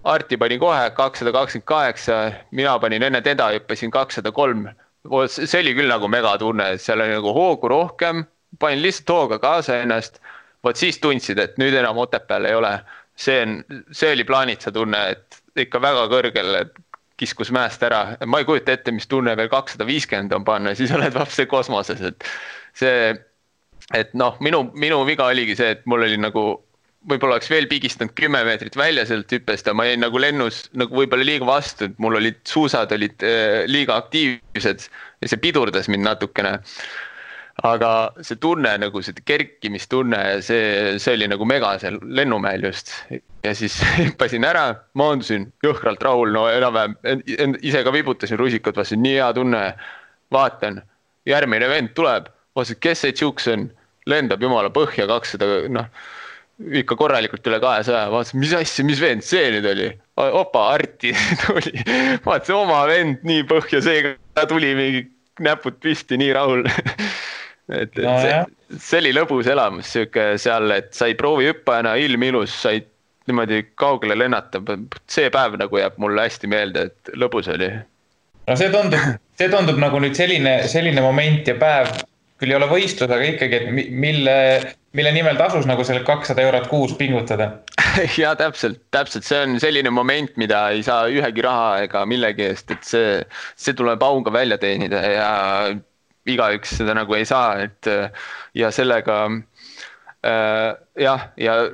Arti pani kohe 228, mina panin enne teda, hüppasin 203, see oli küll nagu megatunne, seal oli nagu hoogu rohkem, panin lihtsalt hooga kaasa ennast, siis tundsid, et nüüd enam Otepääl ei ole. See oli plaanitsa tunne, et ikka väga kõrgel kiskus mäest ära. Ma ei kujuta ette, mis tunne veel 250 on panna, siis oled vapse kosmoses. Minu viga oligi see, et mul oli nagu, võib-olla oleks veel pigistanud 10 meetrit välja sealt hüppest ja ma jäin nagu lennus nagu võib-olla liiga vastu, et mul olid suusad liiga aktiivsed ja see pidurdas mind natukene. Aga see tunne, nagu see kerkimistunne, see oli nagu mega seal lennumäel just. Ja siis hüppasin ära, maandusin jõhkralt rahul, enam-vähem ise ka vibutasin rusikad, vastasin, nii hea tunne, vaatan, järgmine vend tuleb, vaatasin, kes see tšuks on, lendab jumala põhja 200, ikka korralikult üle 200, vaatasin, mis asja, mis vend see nüüd oli, opa, Arti tuli, vaatasin oma vend nii põhja, see ka tuli mingi näpud pisti, nii rahul. See oli lõbus elamus seal, et sai proovi hüppajana, ilm ilus, sai niimoodi kaugele lennata. See päev nagu jääb mulle hästi meelde, et lõbus oli. No see see tundub nagu nüüd selline moment ja päev, küll ei ole võistlus, aga ikkagi, et mille nimel tasus nagu selle 200 eurot kuus pingutada. Ja täpselt, see on selline moment, mida ei saa ühegi raha ega millegi eest, et see tuleb auga välja teenida ja igaüks seda nagu ei saa, et ja sellega ja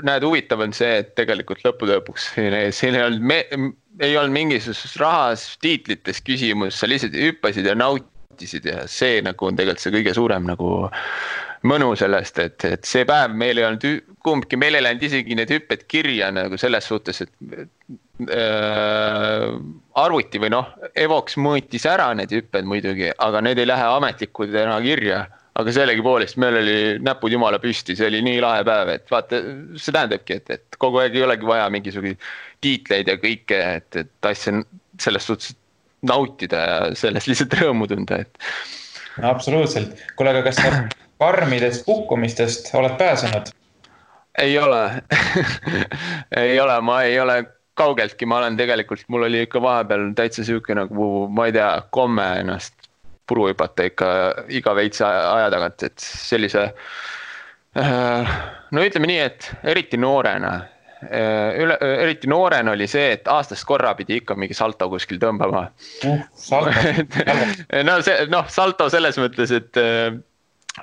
näed, huvitav on see, et tegelikult lõpuks siin ei olnud mingisugusest rahas, tiitlites küsimus, sa lihtsalt hüppasid ja nautisid ja see nagu on tegelikult see kõige suurem nagu mõnu sellest, et see päev meil ei olnud kumbki, meil ei läinud isegi need hüpped kirja nagu selles suhtes, et arvuti või Evox mõõtis ära need hüpped muidugi, aga need ei lähe ametlikud enam kirja, aga sellegi poolest meil oli näpud jumala püsti, see oli nii lahe päev, et vaata, see tähendabki, et kogu aeg ei olegi vaja mingisugune tiitleid ja kõike, et asja selles suhtes nautida ja sellest lihtsalt rõõmu tunda, et. Absoluutselt. Kuule, aga kas sa karmidest kukkumistest oled pääsenud? Ei ole. Ei ole, ma ei ole kaugeltki, ma olen tegelikult, mul oli ikka vahepeal täitsa siuke nagu, ma ei tea, komme ennast puru hüpata ikka iga veitsa aja tagant, et sellise, no ütleme nii, et eriti noorena oli see, et aastast korra pidi ikka mingi salto kuskil tõmbama. Salto selles mõttes, et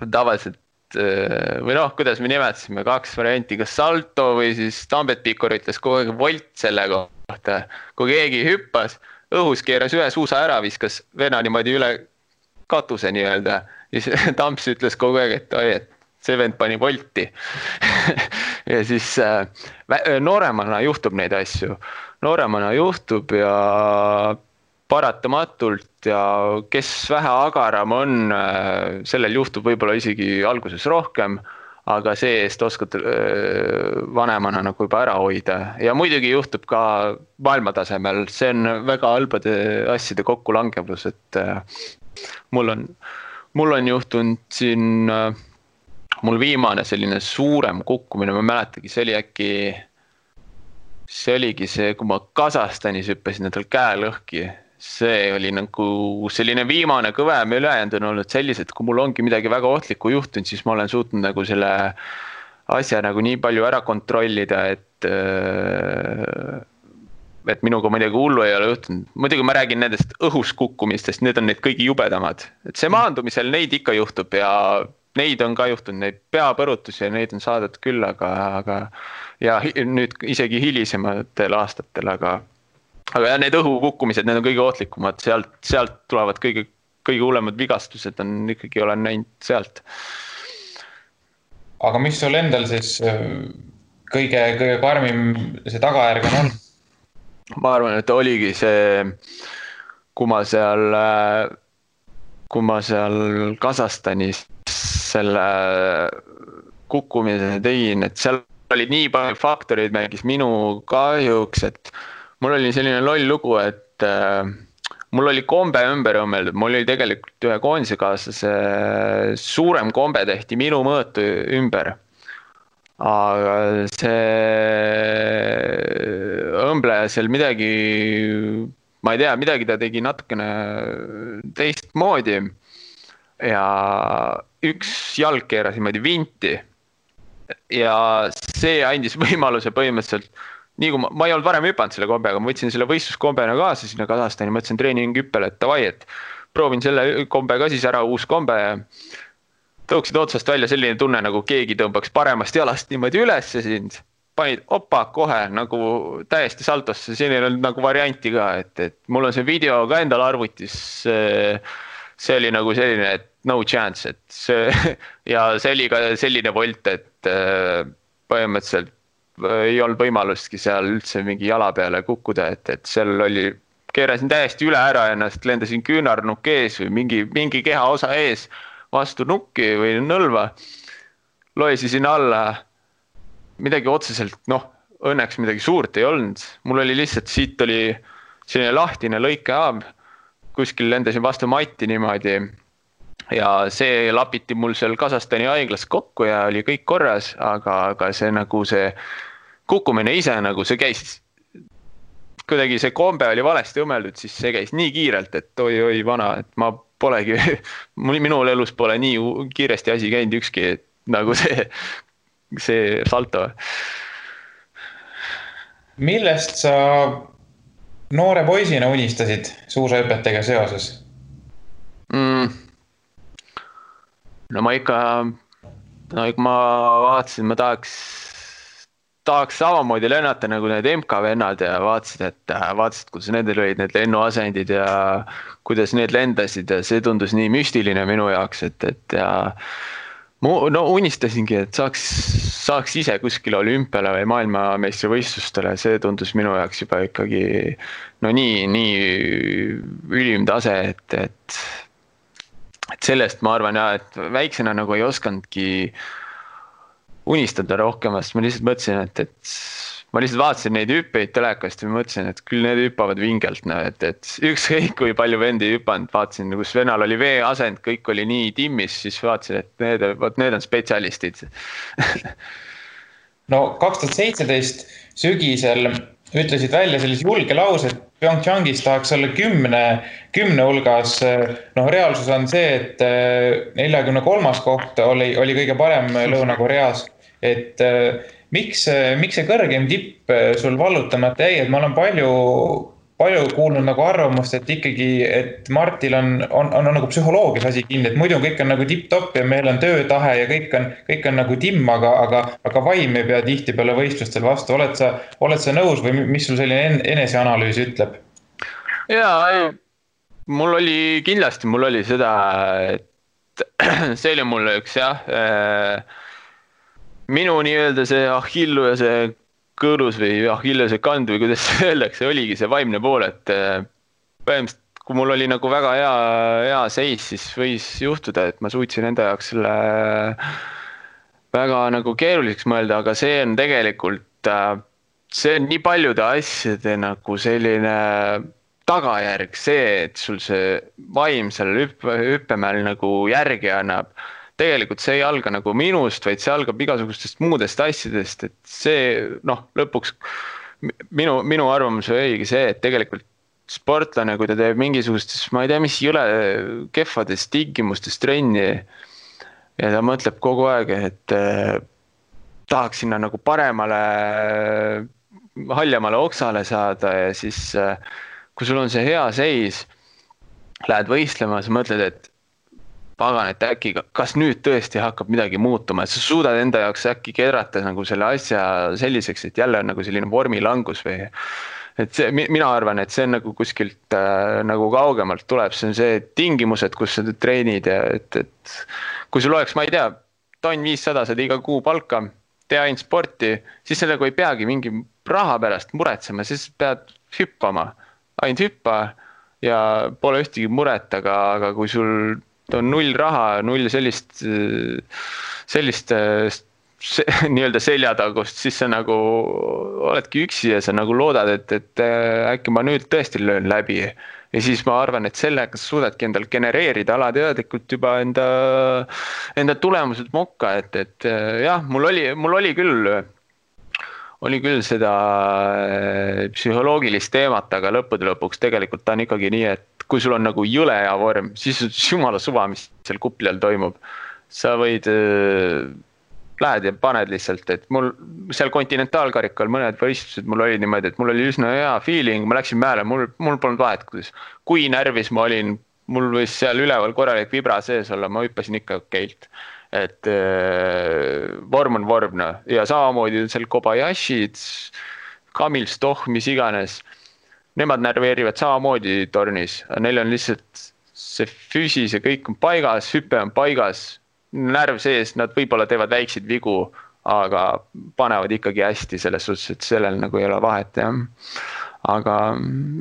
tavaliselt või kuidas me nimetasime 2 varianti, kas salto või siis Tambet Pikor ütles kogu aeg volt selle kohta. Kui keegi hüppas, õhus keeras ühe suusa ära, viskas vena niimoodi üle katuse nii-öelda. Siis Tamps ütles kogu aeg, et see vend pani volti. Ja siis nooremana juhtub neid asju. Nooremana juhtub ja paratamatult ja kes vähe agaram on, sellel juhtub võib-olla isegi alguses rohkem, aga see eest oskad vanemana nagu juba ära hoida. Ja muidugi juhtub ka maailmatasemel, see on väga halbade asjade kokkulangevus, et mul on juhtunud siin, mul viimane selline suurem kukkumine, ma mäletagi, see oligi see, kui ma Kasahstanis hüppasin endal käe lõhki. See oli nagu selline viimane kõvem, ülejäänud on olnud sellised, kui mul ongi midagi väga ohtlikku juhtunud, siis ma olen suutnud nagu selle asja nagu nii palju ära kontrollida, et minuga midagi hullu ei ole juhtunud. Muidugi ma räägin nendest õhus kukkumistest, need on need kõigi jubedamad. Et see maandumisel neid ikka juhtub ja neid on ka juhtunud, neid peapõrutusi ja neid on saadud küll, aga ja nüüd isegi hilisematel aastatel, aga need õhukukkumised, need on kõige ohtlikumad, sealt tulevad kõige hullemad vigastused on ikkagi olen näinud sealt. Aga mis sul endal siis kõige karmim see tagajärg on olnud? Ma arvan, et oligi see, kui ma seal Kasahstanis selle kukkumise tegin, et seal oli nii palju faktoreid mängis minu kahjuks, et mul oli selline loll lugu, et mul oli kombe ümber õmmeldud, mul oli tegelikult ühe koondisekaaslase suurem kombe tehti minu mõõtu ümber. Aga see õmbleja seal midagi, ma ei tea, midagi ta tegi natukene teistmoodi ja üks jalg keeras niimoodi vinti ja see andis võimaluse põhimõtteliselt nii kui ma ei olnud varem hüpanud selle kombega, ma võtsin selle võistluskombena kaasa sinna Kasahstani, mõtlesin treeninghüppele, et davai, et proovin selle kombe ka siis ära, uus kombe ja tõuksid otsast välja selline tunne, nagu keegi tõmbaks paremast jalast niimoodi üles ja sind panid opa kohe nagu täiesti saltosse, siin ei olnud nagu varianti ka, et mul on see video ka endal arvutis, see oli nagu selline, et no chance, et see ja see oli ka selline volt, et põhimõtteliselt ei olnud võimalustki seal üldse mingi jala peale kukkuda, et seal oli, keerasin täiesti üle ära ennast, lendasin küünarnukk ees või mingi keha osa ees vastu nukki või nõlva, loesisin alla, midagi otseselt, õnneks midagi suurt ei olnud, mul oli lihtsalt, siit oli selline lahtine lõikehaab, kuskil lendasin vastu matti niimoodi ja see lapiti mul seal Kasahstani haiglas kokku ja oli kõik korras, aga see nagu see kukkumine ise nagu see käis kuidagi see kombe oli valesti õmmeldud, siis see käis nii kiirelt, et oi vana, et ma polegi, minul elus pole nii kiiresti asi käinud ükski, nagu see salto. Millest sa noore poisina unistasid suusahüpetega seoses? No ma vaatasin, ma tahaks samamoodi lennata nagu need MK vennad ja vaatasid, kuidas nendel olid need lennuasendid ja kuidas need lendasid ja see tundus nii müstiline minu jaoks, et unistasingi, et saaks ise kuskile olümpiale või maailmameistrivõistlustele, see tundus minu jaoks juba ikkagi nii ülim tase, et sellest ma arvan et väiksena nagu ei oskandki unistada rohkemast, ma lihtsalt mõtlesin, et ma lihtsalt vaatasin neid hüppeid telekast ja mõtlesin, et küll need hüppavad vingelt, et ükskõik kui palju vendi hüpanud, vaatasin, kus vennal oli veeasend, kõik oli nii timmis, siis vaatasin, et need on spetsialistid. No 2017 sügisel ütlesid välja sellise julge lause, et Pyeongchangis tahaks olla 10 hulgas. Reaalsus on see, et 43. koht oli kõige parem Lõuna-Koreas. Et miks see kõrgem tipp sul vallutamata jäi, et ma olen palju kuulnud nagu arvamust, et ikkagi, et Martil on nagu psühholoogias asi kinni, et muidu kõik on nagu tipp-topp ja meil on töötahe ja kõik on nagu timm, aga vaim ei pea tihti peale võistlustel vastu. Oled sa nõus või mis sul selline eneseanalüüs ütleb? Jaa, mul oli seda, et see oli mulle üks minu nii-öelda see Achillu ja see kõõrus või Achillese kand või kuidas öeldakse, oligi see vaimne pool, et põhimõtteliselt kui mul oli nagu väga hea seis, siis võis juhtuda, et ma suutsin enda jaoks selle väga nagu keeruliseks mõelda, aga see on tegelikult, see on nii paljude asjade nagu selline tagajärg, see, et sul see vaim seal hüppemäel nagu järgi annab. Tegelikult see ei alga nagu minust, vaid see algab igasugustest muudest asjadest, et see, lõpuks minu arvamus oligi see, et tegelikult sportlane, kui ta teeb mingisugustes, ma ei tea, mis jõle kehvades tingimustes trenni ja ta mõtleb kogu aeg, et tahaks sinna nagu paremale, haljamale oksale saada ja siis, kui sul on see hea seis, lähed võistlema, sa mõtled, et pagan, et äkki, kas nüüd tõesti hakkab midagi muutuma, et sa suudad enda jaoks äkki kedrata nagu selle asja selliseks, et jälle on nagu selline vormilangus või et see, mina arvan, et see on nagu kuskilt nagu kaugemalt tuleb, see on see tingimused, kus sa treenid ja et kui sul oleks, ma ei tea, tonn 500 saad iga kuu palka, tee ainult sporti, siis sellega ei peagi mingi raha pärast muretsema, siis pead hüppama, ainult hüppa ja pole ühtegi muret, aga kui sul on null raha, null sellist nii-öelda seljatagust, siis sa nagu oledki üksi ja sa nagu loodad, et äkki ma nüüd tõesti löön läbi. Ja siis ma arvan, et sellega suudadki endal genereerida alateadlikult juba enda tulemused mokka, et jah, mul oli küll seda psühholoogilist teemat, aga lõppude lõpuks tegelikult ta on ikkagi nii, et kui sul on nagu jõle hea vorm, siis jumala suva, mis seal kupli all toimub. Sa võid, lähed ja paned lihtsalt, et mul seal kontinentaalkarikal mõned võistlused mul oli niimoodi, et mul oli üsna hea feeling, ma läksin mäele, mul polnud vahet, kui närvis ma olin, mul võis seal üleval korralik vibra sees olla, ma hüppasin ikka okeilt. Et vorm on vorm ja samamoodi seal Kobayashid, Kamil Stoh, mis iganes, nemad närveerivad samamoodi tornis, neil on lihtsalt see füüsis ja kõik on paigas, hüppe on paigas, närv sees, nad võib-olla teevad väikseid vigu, aga panevad ikkagi hästi selles suhtes, et sellel nagu ei ole vahet, jah. Aga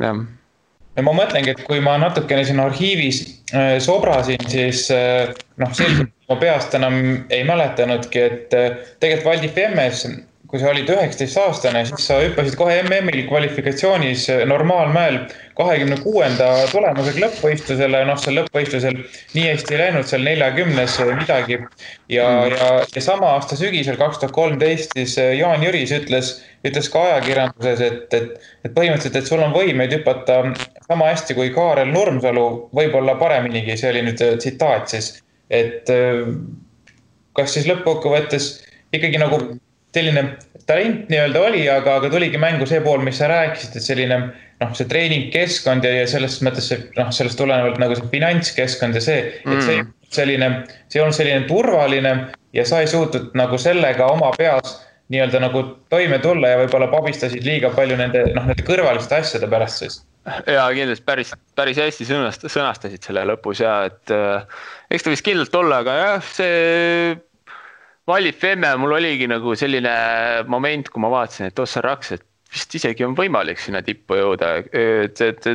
jah. Ja ma mõtlengi, et kui ma natukene siin arhiivis sobrasin, siis selgelt ma peast enam ei mäletanudki, et tegelikult Valdi Femmes, kui sa olid 19-aastane, siis sa hüppasid kohe MM-il kvalifikatsioonis normaalmäel 26. tulemusega lõppvõistlusele, seal lõppvõistlusel nii hästi ei läinud, seal 40 midagi. Ja sama aasta sügisel 2013 siis Jaan Jüris ütles ütles ka ajakirjanduses, et põhimõtteliselt, et sul on võimeid hüpata sama hästi kui Kaarel Nurmsalu, võib-olla pareminigi, see oli nüüd tsitaat siis, et kas siis lõppkokkuvõttes ikkagi nagu selline talent nii-öelda oli, aga tuligi mängu see pool, mis sa rääkisid, et selline see treeningkeskkond ja selles mõttes sellest tulenevalt nagu see finantskeskkond ja see, et see on selline turvaline ja sa ei suutnud nagu sellega oma peas nii-öelda nagu toime tulla ja võib-olla pabistasid liiga palju nende kõrvaliste asjade pärast siis. Ja kindlasti päris hästi sõnastasid selle lõpus ja et eks ta vist kindlalt olla, aga jah, see Valli Femme mul oligi nagu selline moment, kui ma vaatasin, et Ossar Raks, et vist isegi on võimalik sinna tippu jõuda, et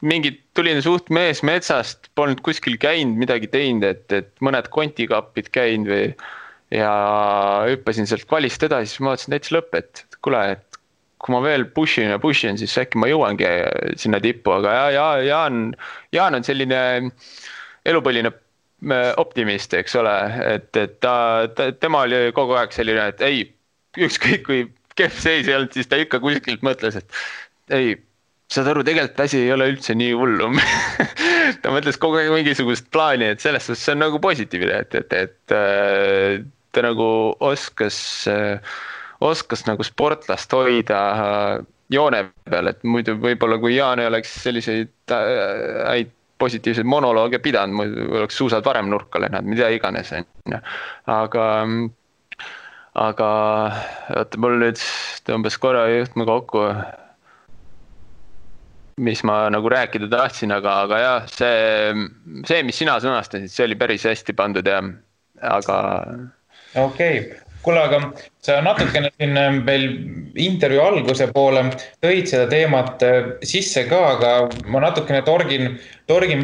mingid tulin suht mees metsast, polnud kuskil käinud, midagi teinud, et mõned kontikappid käinud või ja hüppasin sealt kvalist edasi, siis ma vaatasin täitsa lõpp, et kuule, et kui ma veel pushin, siis äkki ma jõuangi sinna tippu, aga Jaan on selline elupõline optimist, eks ole, et tema oli kogu aeg selline, et ei, ükskõik kui kehv seis ei olnud, siis ta ikka kuskilt mõtles, et ei, saad aru, tegelikult asi ei ole üldse nii hullu. Ta mõtles kogu aeg mingisugust plaani, et selles suhtes see on nagu positiivne, et ta nagu oskas nagu sportlast hoida joone peal, et muidu võib-olla kui Jaan ei oleks selliseid häid positiivseid monolooge pidanud, muidu oleks suusad varem nurka lennanud, mida iganes. Aga oota, mul nüüd tõmbas korra juhtme kokku, mis ma nagu rääkida tahtsin, aga jah, see, mis sina sõnastasid, see oli päris hästi pandud ja aga... Okei. Kuule, aga sa natukene siin veel intervjuu alguse poole tõid seda teemat sisse ka, aga ma natukene torgin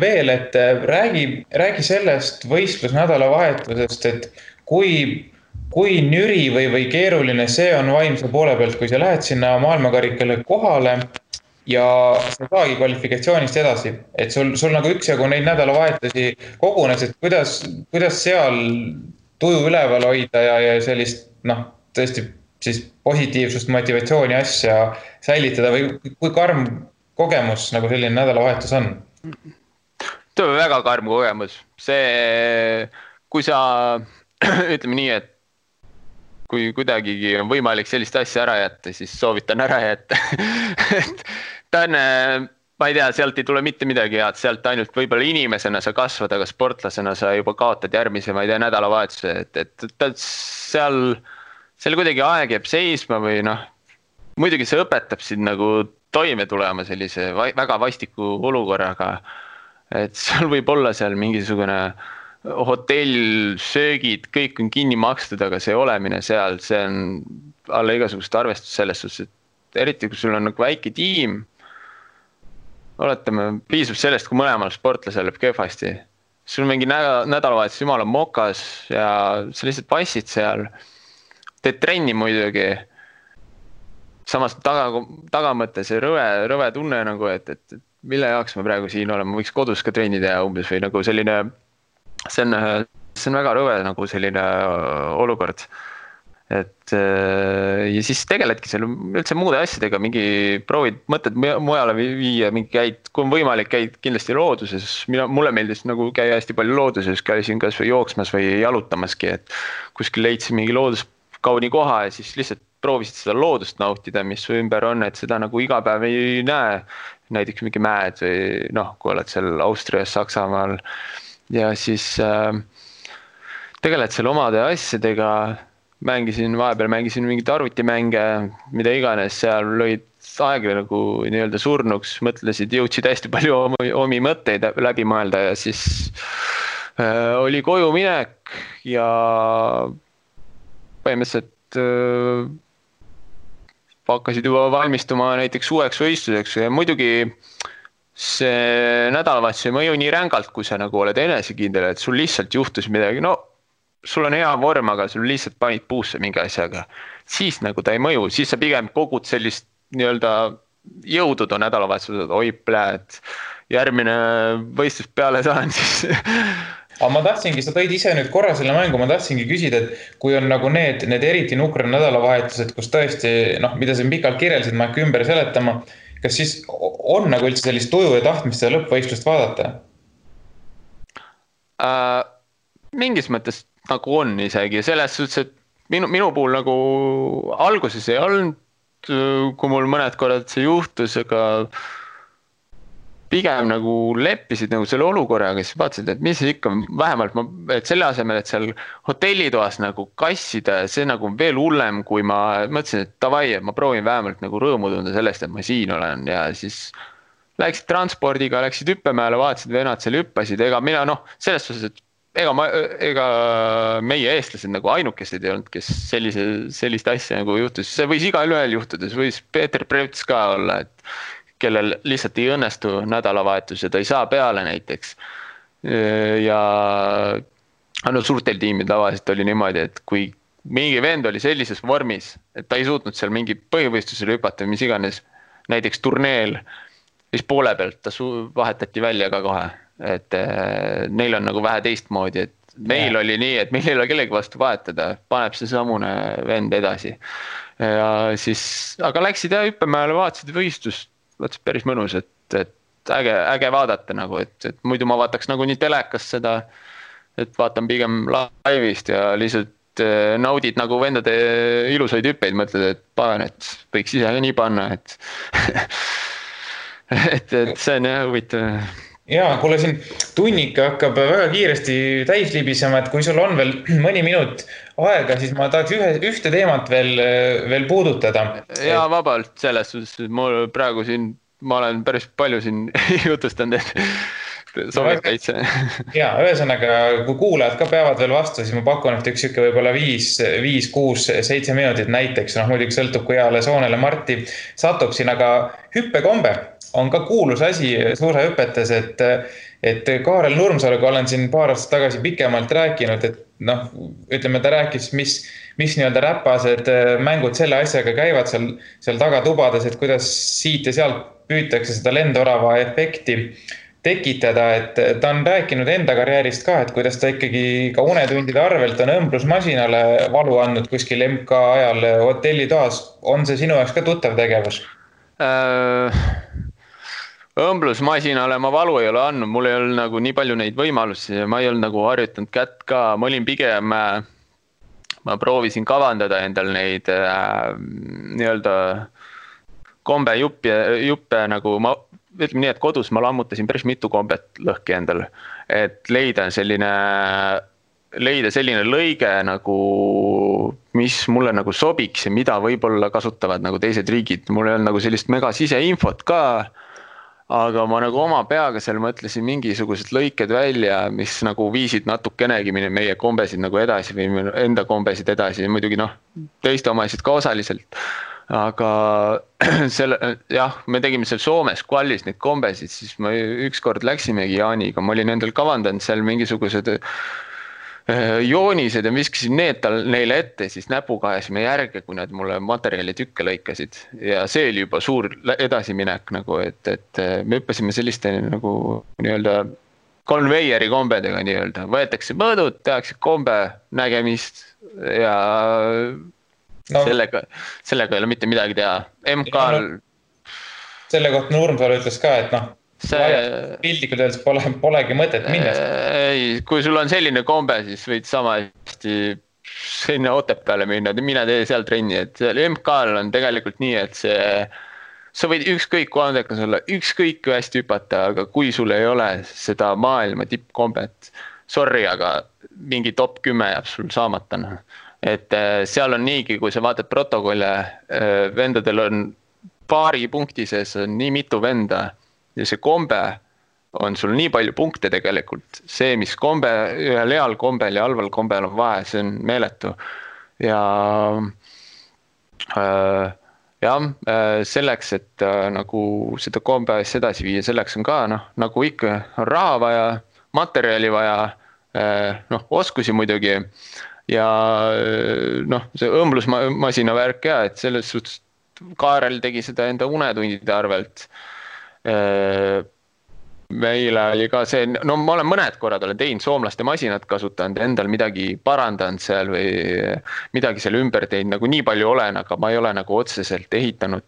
veel, et räägi sellest võistlusnädalavahetusest, et kui nüri või keeruline see on vaimse poole pealt, kui sa lähed sinna maailmakarikale kohale ja sa saagi kvalifikatsioonist edasi, et sul nagu üksjagu neid nädalavahetusi kogunes, et kuidas seal tuju üleval hoida ja sellist, tõesti siis positiivsust, motivatsiooni asja säilitada või kui karm kogemus nagu selline nädalavahetus on? See on väga karm kogemus. See, kui sa, ütleme nii, et kui kuidagigi on võimalik sellist asja ära jätta, siis soovitan ära jätta. Ta on... Ma ei tea, sealt ei tule mitte midagi head, sealt ainult võib-olla inimesena sa kasvad, aga sportlasena sa juba kaotad järgmise, ma ei tea, nädalavahetuse, et seal kuidagi aeg jääb seisma või muidugi see õpetab sind nagu toime tulema sellise väga vastiku olukorraga, et seal võib olla seal mingisugune hotell, söögid, kõik on kinni makstud, aga see olemine seal, see on alla igasugust arvestust selles suhtes, et eriti kui sul on nagu väike tiim, oletame, piisab sellest, kui mõlemal sportlasel läheb kehvasti. Sul mingi nädalavahetus jumala mokas ja sa lihtsalt passid seal. Teed trenni muidugi. Samas tagamõtte see rõve tunne, nagu, et mille jaoks ma praegu siin olen, ma võiks kodus ka trenni teha umbes või nagu selline, see on väga rõve nagu selline olukord. Et ja siis tegeledki seal üldse muude asjadega, mingi proovid mõtted mujale viia, mingi käid, kui on võimalik, käid kindlasti looduses. Mulle meeldis nagu käia hästi palju looduses, käisin kas või jooksmas või jalutamaski, et kuskil leidsin mingi looduskauni koha ja siis lihtsalt proovisid seda loodust nautida, mis su ümber on, et seda nagu iga päev ei näe. Näiteks mingi mäed või kui oled seal Austrias, Saksamaal ja siis tegeled seal omade asjadega. Vahepeal mängisin mingit arvutimänge, mida iganes, seal lõid aegla nagu nii-öelda surnuks, mõtlesid, jõudsid hästi palju omi mõtteid läbi mõelda ja siis oli koju minek ja põhimõtteliselt hakkasid juba valmistuma näiteks uueks võistluseks ja muidugi see nädalavahetus ei mõju nii rängalt, kui sa nagu oled enesekindel, et sul lihtsalt juhtus midagi, sul on hea vorm, aga sul lihtsalt panid puusse mingi asjaga. Siis nagu ta ei mõju, siis sa pigem kogud sellist nii-öelda jõudu too nädalavahetused, oi pläät, järgmine võistlus peale saan, siis aga ma tahtsingi, sa tõid ise nüüd korra selle mängu, ma tahtsingi küsida, et kui on nagu need eriti nukra nädalavahetused, kus tõesti, noh, mida sa pikalt kirjeldasid, ma hakka ümber seletama, kas siis on nagu üldse sellist tuju ja tahtmist seda lõppvõistlust vaadata? Mingis mõttes nagu on isegi, selles suhtes, et minu puhul nagu alguses ei olnud, kui mul mõned korrad see juhtus, aga pigem nagu leppisid nagu selle olukorraga, siis vaatasid, et mis ikka vähemalt, et selle asemel, et seal hotellitoas nagu kassida, see nagu veel hullem, kui ma mõtlesin, et davai, et ma proovin vähemalt nagu rõõmu tunda sellest, et ma siin olen ja siis läksid transpordiga, läksid hüppemäele, vaatasid, vennad seal hüppasid, ega mina selles suhtes, et ega meie eestlased nagu ainukesed ei olnud, kes sellist asja nagu juhtus, see võis igal ühel juhtuda, see võis Peeter Preuts ka olla, et kellel lihtsalt ei õnnestu nädalavahetus ja ta ei saa peale näiteks. Ja suurtel tiimid tavaliselt oli niimoodi, et kui mingi vend oli sellises vormis, et ta ei suutnud seal mingi põhivõistlusele hüpata või mis iganes, näiteks turneel, siis poole pealt ta vahetati välja ka kohe, et neil on nagu vähe teistmoodi, et meil oli nii, et meil ei ole kellegi vastu vahetada, paneb see samune vend edasi. Ja siis, aga läksid ja hüppemäele, vaatasid võistlust, vaatasid päris mõnus, et äge vaadata nagu, et muidu ma vaataks nagu nii telekas seda, et vaatan pigem laivist ja lihtsalt naudid nagu vendade ilusaid hüppeid, mõtled, et pagan, et võiks ise nii panna, et et see on jah huvitav. Jaa, kuule siin tunnika hakkab väga kiiresti täis libisema, et kui sul on veel mõni minut aega, siis ma tahaks ühte teemat veel puudutada. Jaa, vabalt selles suhtes, mul praegu siin, ma olen päris palju siin jutustanud, et sobib täitsa. Jaa, ühesõnaga, kui kuulajad ka peavad veel vastu, siis ma pakun, et üks võib-olla 5, 6, 7 minutit näiteks, muidugi sõltub, kui heale soonele Marti satub siin, aga hüppekombe on ka kuulus asi suusahüpetes, et Kaarel Nurmsaluga olen siin paar aastat tagasi pikemalt rääkinud, et ütleme, ta rääkis, mis nii-öelda räpased mängud selle asjaga käivad seal tagatubades, et kuidas siit ja sealt püütakse seda lendorava efekti tekitada, et ta on rääkinud enda karjäärist ka, et kuidas ta ikkagi ka unetundide arvelt on õmblusmasinale valu andnud kuskil MK ajal hotellitoas. On see sinu jaoks ka tuttav tegevus? Õmblusmasinale ma valu ei ole andnud, mul ei olnud nagu nii palju neid võimalusi ja ma ei olnud nagu harjutanud kätt ka, ma olin pigem, ma proovisin kavandada endal neid nii-öelda kombejuppe nagu ma ütleme nii, et kodus ma lammutasin päris mitu kombet lõhki endal, et leida selline lõige nagu, mis mulle nagu sobiks ja mida võib-olla kasutavad nagu teised riigid, mul ei olnud nagu sellist mega siseinfot ka, aga ma nagu oma peaga seal mõtlesin mingisugused lõiked välja, mis nagu viisid natukenegi meie kombesid nagu edasi või enda kombesid edasi, muidugi teiste omasid ka osaliselt. Aga me tegime seal Soomes Kvallis neid kombesid, siis ma ükskord läksimegi Jaaniga, ma olin endal kavandanud seal mingisugused joonised ja viskasin need neile ette, siis näpuga ajasime järge, kui nad mulle materjali tükke lõikasid ja see oli juba suur edasiminek nagu, et me hüppasime selliste nagu nii-öelda konveieri kombedega nii-öelda, võetakse mõõdud, tehakse kombe nägemist ja sellega ei ole mitte midagi teha. MK-l selle kohta Nurmsalu ütles ka, et pildikult öeldes polegi mõtet minna. Ei, kui sul on selline kombe, siis võid sama hästi sinna Otepääle minna, mine tee seal trenni, et MK-l on tegelikult nii, et sa võid ükskõik kui andekas olla, ükskõik kui hästi hüpata, aga kui sul ei ole seda maailma tippkombet, sorry, aga mingi top 10 jääb sul saamata. Et seal on niigi, kui sa vaatad protokolle, vendadel on paari punkti sees on nii mitu venda ja see kombe on sul nii palju punkte tegelikult. See, mis kombe, ühel heal kombel ja halval kombel on vahe, see on meeletu. Ja selleks, et nagu seda kombe edasi viia, selleks on ka, nagu ikka on raha vaja, materjali vaja, oskusi muidugi ja see õmblusmasina värk ja, et selles suhtes Kaarel tegi seda enda unetundide arvelt. meile oli ka see, no ma olen mõned korrad olen teinud soomlaste masinat kasutanud, endal midagi parandanud seal või midagi seal ümber teinud, nagu nii palju olen, aga ma ei ole nagu otseselt ehitanud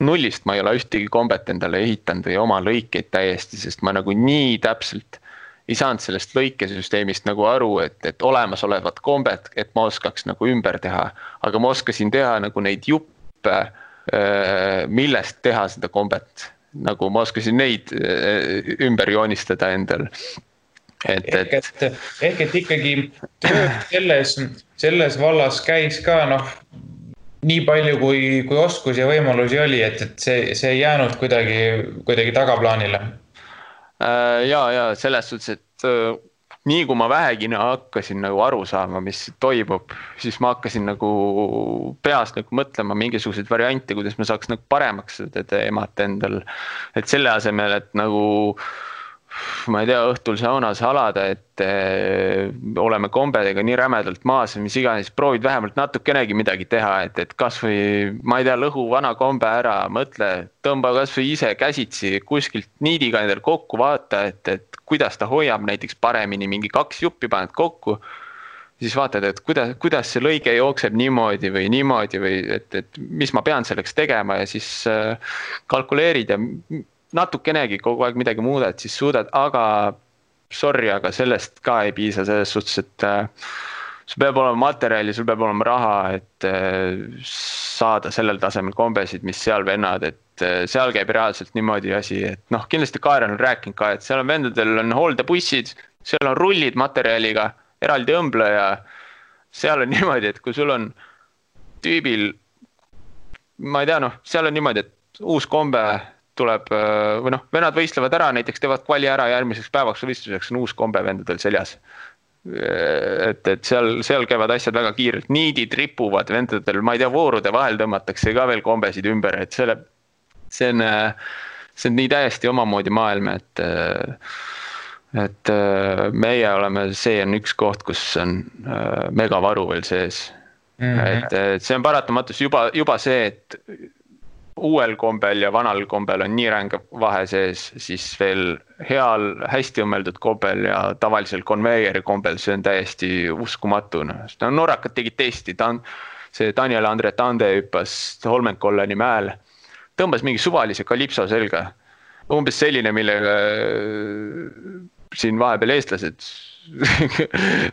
nullist, ma ei ole ühtegi kombet endale ehitanud või oma lõikeid täiesti, sest ma nagu nii täpselt ei saanud sellest lõikesüsteemist nagu aru, et olemasolevat kombet, et ma oskaks nagu ümber teha, aga ma oskasin teha nagu neid juppe, millest teha seda kombet. Nagu ma oskasin neid ümber joonistada endal. Ehk et ikkagi tööd selles vallas käis ka nii palju kui oskus ja võimalusi oli, et see ei jäänud kuidagi tagaplaanile. Ja selles suhtes, et nii kui ma vähegi hakkasin nagu aru saama, mis toimub, siis ma hakkasin nagu peas nagu mõtlema mingisuguseid variante, kuidas ma saaks nagu paremaks seda teemat endal. Et selle asemel, et nagu, ma ei tea, õhtul saunas halada, et oleme kombedega nii rämedalt maas, mis iganes, proovid vähemalt natukenegi midagi teha, et kas või, ma ei tea, lõhu vana kombe ära, mõtle, tõmba kas või ise käsitsi kuskilt niidiga endal kokku, vaata, et kuidas ta hoiab näiteks paremini, mingi 2 juppi paned kokku, siis vaatad, et kuidas see lõige jookseb niimoodi või et mis ma pean selleks tegema ja siis kalkuleerid ja natukenegi kogu aeg midagi muudad, siis suudad, aga sorry, aga sellest ka ei piisa selles suhtes, et sul peab olema materjali, sul peab olema raha, et saada sellel tasemel kombesid, mis seal vennad, et seal käib reaalselt niimoodi asi, et kindlasti Kaarel on rääkinud ka, et seal on vendadel on hooldebussid, seal on rullid materjaliga, eraldi õmbleja, seal on niimoodi, et kui sul on tüübil, ma ei tea, seal on niimoodi, et uus kombe tuleb, või vennad võistlevad ära, näiteks teevad kvali ära järgmiseks päevaks võistluseks on uus kombe vendadel seljas. Et seal käivad asjad väga kiirelt, niidid ripuvad vendadel, ma ei tea, voorude vahel tõmmatakse ka veel kombesid ümber, et see on nii täiesti omamoodi maailm, et meie oleme, see on üks koht, kus on megavaru veel sees. Et see on paratamatus juba see, et uuel kombel ja vanal kombel on nii ränga vahe sees, siis veel heal, hästi õmmeldud kombel ja tavalisel konveieri kombel, see on täiesti uskumatu. Norrakad tegid testi, see Daniel Andre Tande hüppas Holmenkolleni mäel, tõmbas mingi suvalise kalipso selga, umbes selline, millega siin vahepeal eestlased,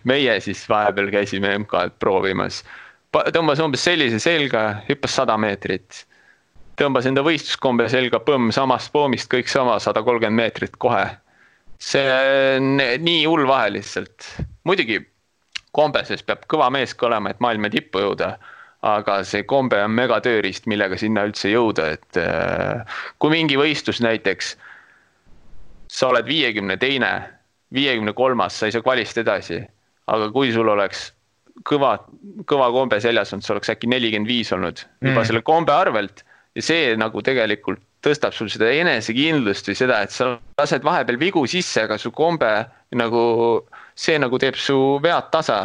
meie siis vahepeal käisime MK-d proovimas, tõmbas umbes sellise selga, hüppas 100 meetrit, tõmbas enda võistluskombe selga, samast poomist kõik sama, 130 meetrit kohe. See on nii hull vahe lihtsalt. Muidugi kombeses peab kõva mees ka olema, et maailma tippu jõuda, aga see kombe on mega tööriist, millega sinna üldse jõuda, et kui mingi võistlus näiteks, sa oled 52, 53, sa ei saa kvalist edasi, aga kui sul oleks kõva kombe seljas on, see oleks äkki 45 olnud juba selle kombe arvelt, ja see nagu tegelikult tõstab sul seda enesekindlust või seda, et sa lased vahepeal vigu sisse, aga su kombe nagu, see nagu teeb su vead tasa.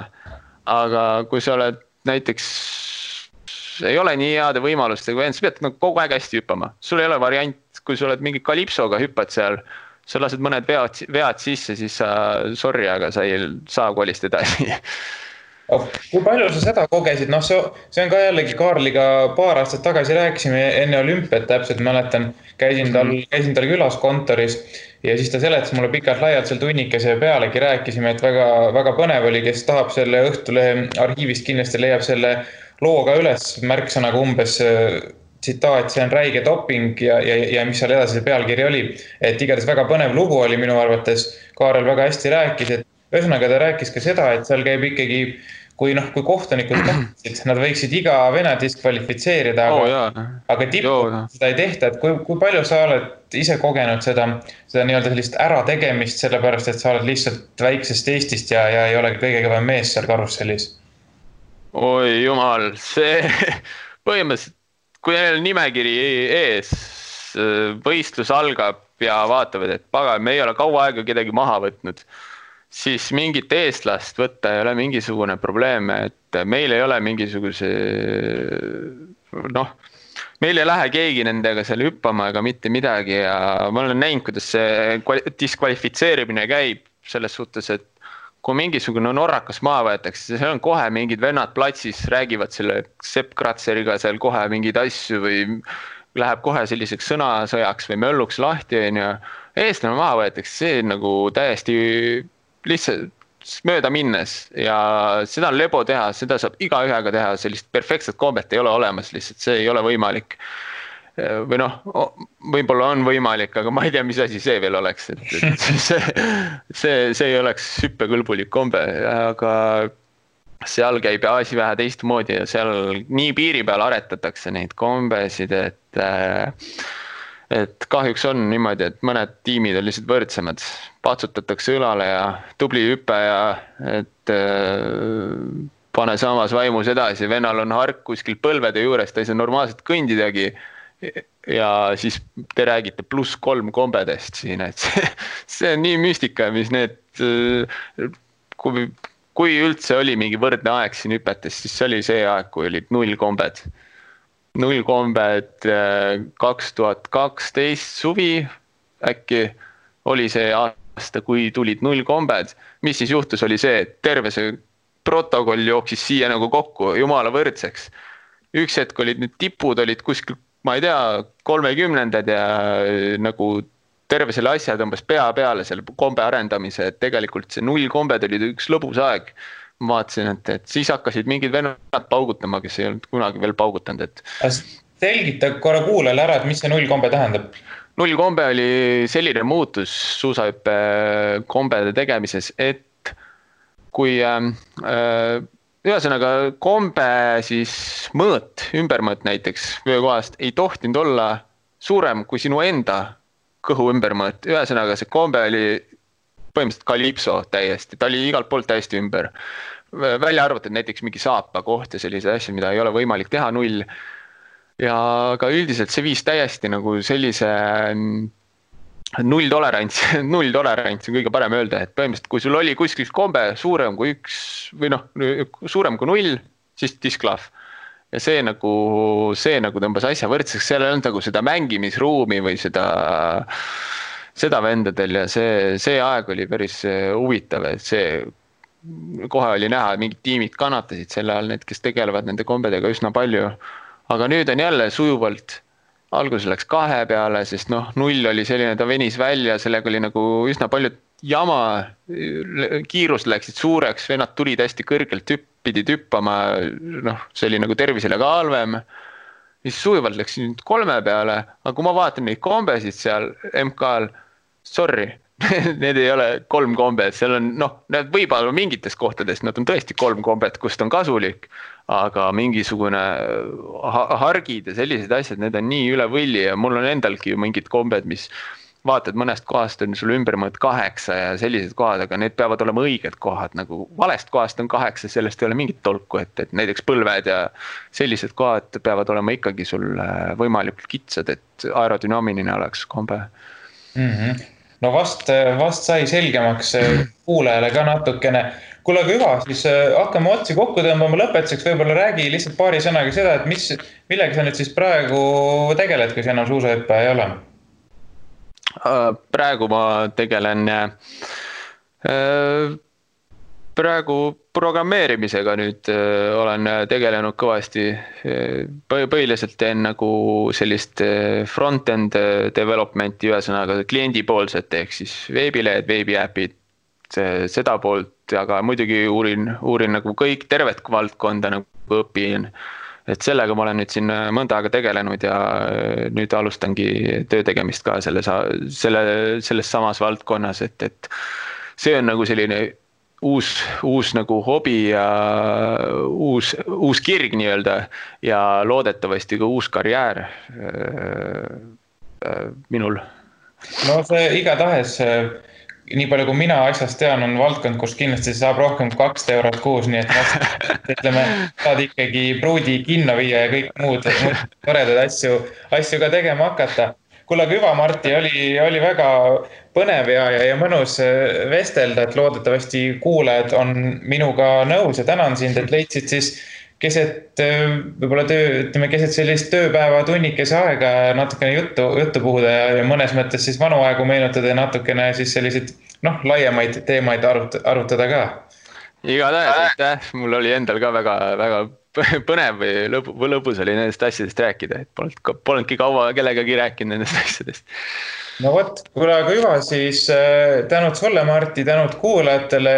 Aga kui sa oled näiteks, ei ole nii heade võimalustega, sa pead nagu kogu aeg hästi hüppama. Sul ei ole variant, kui sa oled mingi kalipsoga hüppad seal, sa lased mõned vead sisse, siis sa, sorry, aga sa ei saa kolist edasi. Kui palju sa seda kogesid? See on ka jällegi Kaarliga paar aastat tagasi rääkisime enne olümpiat täpselt, mäletan, käisin tal külas kontoris ja siis ta seletas mulle pikalt laialt seal tunnikese pealegi rääkisime, et väga, väga põnev oli, kes tahab selle Õhtulehe arhiivist kindlasti leiab selle looga üles märksõnaga umbes tsitaat, see on räige doping ja mis seal edasi see pealkiri oli. Et igatahes väga põnev lugu oli minu arvates, Kaarel väga hästi rääkis, et ühesõnaga ta rääkis ka seda, et seal käib ikkagi kui kohtunikud tahtsid, nad võiksid iga vene diskvalifitseerida, aga tippu seda ei tehta, et kui palju sa oled ise kogenud seda nii-öelda sellist ärategemist, sellepärast, et sa oled lihtsalt väiksest Eestist ja ei ole kõige kõvem mees seal karussellis? Oi jumal, see põhimõtteliselt, kui neil nimekiri ees, võistlus algab ja vaatavad, et paga, me ei ole kaua aega kedagi maha võtnud, siis mingit eestlast võtta ei ole mingisugune probleem, et meil ei ole mingisuguse, meil ei lähe keegi nendega seal hüppama ega mitte midagi ja ma olen näinud, kuidas see diskvalifitseerimine käib selles suhtes, et kui mingisugune norrakas maha võetakse, seal on kohe mingid vennad platsis, räägivad selle Sepp Kratzeriga seal kohe mingeid asju või läheb kohe selliseks sõnasõjaks või mölluks lahti, eestlane maha võetakse, see nagu täiesti lihtsalt mööda minnes ja seda on lebo teha, seda saab igaühega teha, sellist perfektset kombet ei ole olemas, lihtsalt see ei ole võimalik. Või noh, võib-olla on võimalik, aga ma ei tea, mis asi see veel oleks, et see ei oleks hüppekõlbulik kombe, aga seal käib asi vähe teistmoodi ja seal nii piiri peal aretatakse neid kombesid, et kahjuks on niimoodi, et mõned tiimid on lihtsalt võrdsemad, patsutatakse õlale ja tubli hüppe ja et pane samas vaimus edasi, vennal on hark kuskil põlvede juures, ta ei saa normaalselt kõndidagi ja siis te räägite +3 kombedest siin, et see on nii müstika, mis need, kui üldse oli mingi võrdne aeg siin hüpetes, siis see oli see aeg, kui olid 0 kombed. 0 kombed 2012 suvi äkki oli see aasta, kui tulid 0 kombed. Mis siis juhtus, oli see, et terve see protokoll jooksis siia nagu kokku jumala võrdseks. Üks hetk olid need tipud, olid kuskil, ma ei tea, 30-ndad ja nagu terve selle asja tõmbas pea peale selle kombe arendamise, et tegelikult see 0 kombed olid üks lõbus aeg. Ma vaatasin, et siis hakkasid mingid vennad paugutama, kes ei olnud kunagi veel paugutanud. Selgita korra kuulele ära, et mis see 0 kombe tähendab? 0 kombe oli selline muutus suusahüppe kombede tegemises, et kui ühesõnaga kombe siis mõõt, ümbermõõt näiteks vöökohast ei tohtinud olla suurem kui sinu enda kõhu ümbermõõt. Ühesõnaga see kombe oli põhimõtteliselt kalipso täiesti, ta oli igalt poolt täiesti ümber. Välja arvatud näiteks mingi saapa koht ja sellise asja, mida ei ole võimalik teha 0. Ja ka üldiselt see viis täiesti nagu sellise 0 tolerants on kõige parem öelda, et põhimõtteliselt kui sul oli kuskil kombe suurem kui 1 või noh, suurem kui 0, siis disklahv. Ja see nagu tõmbas asja võrdseks, seal ei olnud nagu seda mängimisruumi või seda vendadel ja see aeg oli päris huvitav, et see kohe oli näha, et mingid tiimid kannatasid selle all, need, kes tegelevad nende kombedega üsna palju. Aga nüüd on jälle sujuvalt, alguses läks 2 peale, sest 0 oli selline, ta venis välja, sellega oli nagu üsna palju jama, kiirust läksid suureks, vennad tulid hästi kõrgelt pidid hüppama, see oli nagu tervisele ka halvem. Siis sujuvalt läks 3 peale, aga kui ma vaatan neid kombesid seal MK-l, sorry, need ei ole 3 kombed, seal on, need võib-olla mingites kohtades, nad on tõesti 3 kombed, kust on kasulik, aga mingisugune hargid ja sellised asjad, need on nii üle võlli ja mul on endalgi ju mingid kombed, mis vaatad mõnest kohast on sul ümbermõõt 8 ja sellised kohad, aga need peavad olema õiged kohad, nagu valest kohast on 8, sellest ei ole mingit tolku, et näiteks põlved ja sellised kohad peavad olema ikkagi sul võimalikult kitsad, et aerodünaamiline oleks kombe. No vast sai selgemaks kuulajale ka natukene. Kuule, aga hüva, siis hakkame otsi kokku tõmbama lõpetuseks, võib-olla räägi lihtsalt paari sõnaga seda, et millega sa nüüd siis praegu tegeled, kui sa enam suusahüppe ei ole? Praegu ma tegelen praegu programmeerimisega nüüd olen tegelenud kõvasti, põhiliselt teen nagu sellist front-end developmenti, ühesõnaga kliendipoolset ehk siis veebilehed, veebiäpid, seda poolt, aga muidugi uurin nagu kõik tervet valdkonda nagu õpin. Et sellega ma olen nüüd siin mõnda aega tegelenud ja nüüd alustangi töö tegemist ka selles samas valdkonnas, et see on nagu selline uus nagu hobi ja uus kirg nii-öelda ja loodetavasti ka uus karjäär minul. No see igatahes, nii palju kui mina asjast tean, on valdkond, kus kindlasti saab rohkem 2 eurot kuus, nii et ütleme, saad ikkagi pruudi kinno viia ja kõik muud toredad asju ka tegema hakata. Kuule, aga hüva, Martti, oli väga põnev ja mõnus vestelda, et loodetavasti kuulajad on minuga nõus ja tänan sind, et leidsid siis keset võib-olla keset sellist tööpäeva tunnikese aega natukene juttu puhuda ja mõnes mõttes siis vanu aegu meenutada ja natukene siis selliseid laiemaid teemaid arutada ka. Igatahes, aitäh, mul oli endal ka väga põnev või lõbus oli nendest asjadest rääkida, et polnudki kaua kellegagi rääkinud nendest asjadest. No võt, kuule, aga juba siis tänud sulle, Marti, tänud kuulajatele,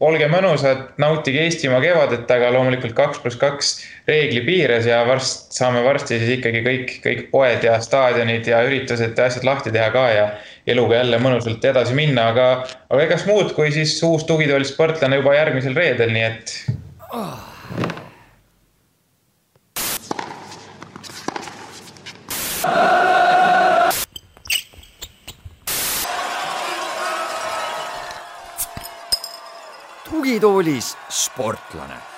olge mõnusad, nautige Eestimaa kevadet, aga loomulikult 2+2 reegli piires ja saame varsti siis ikkagi kõik poed ja staadionid ja üritused ja asjad lahti teha ka ja eluga jälle mõnusalt edasi minna, aga egas muud kui siis uus tugitooli sportlane juba järgmisel reedel, nii et... Tugitoolis sportlane.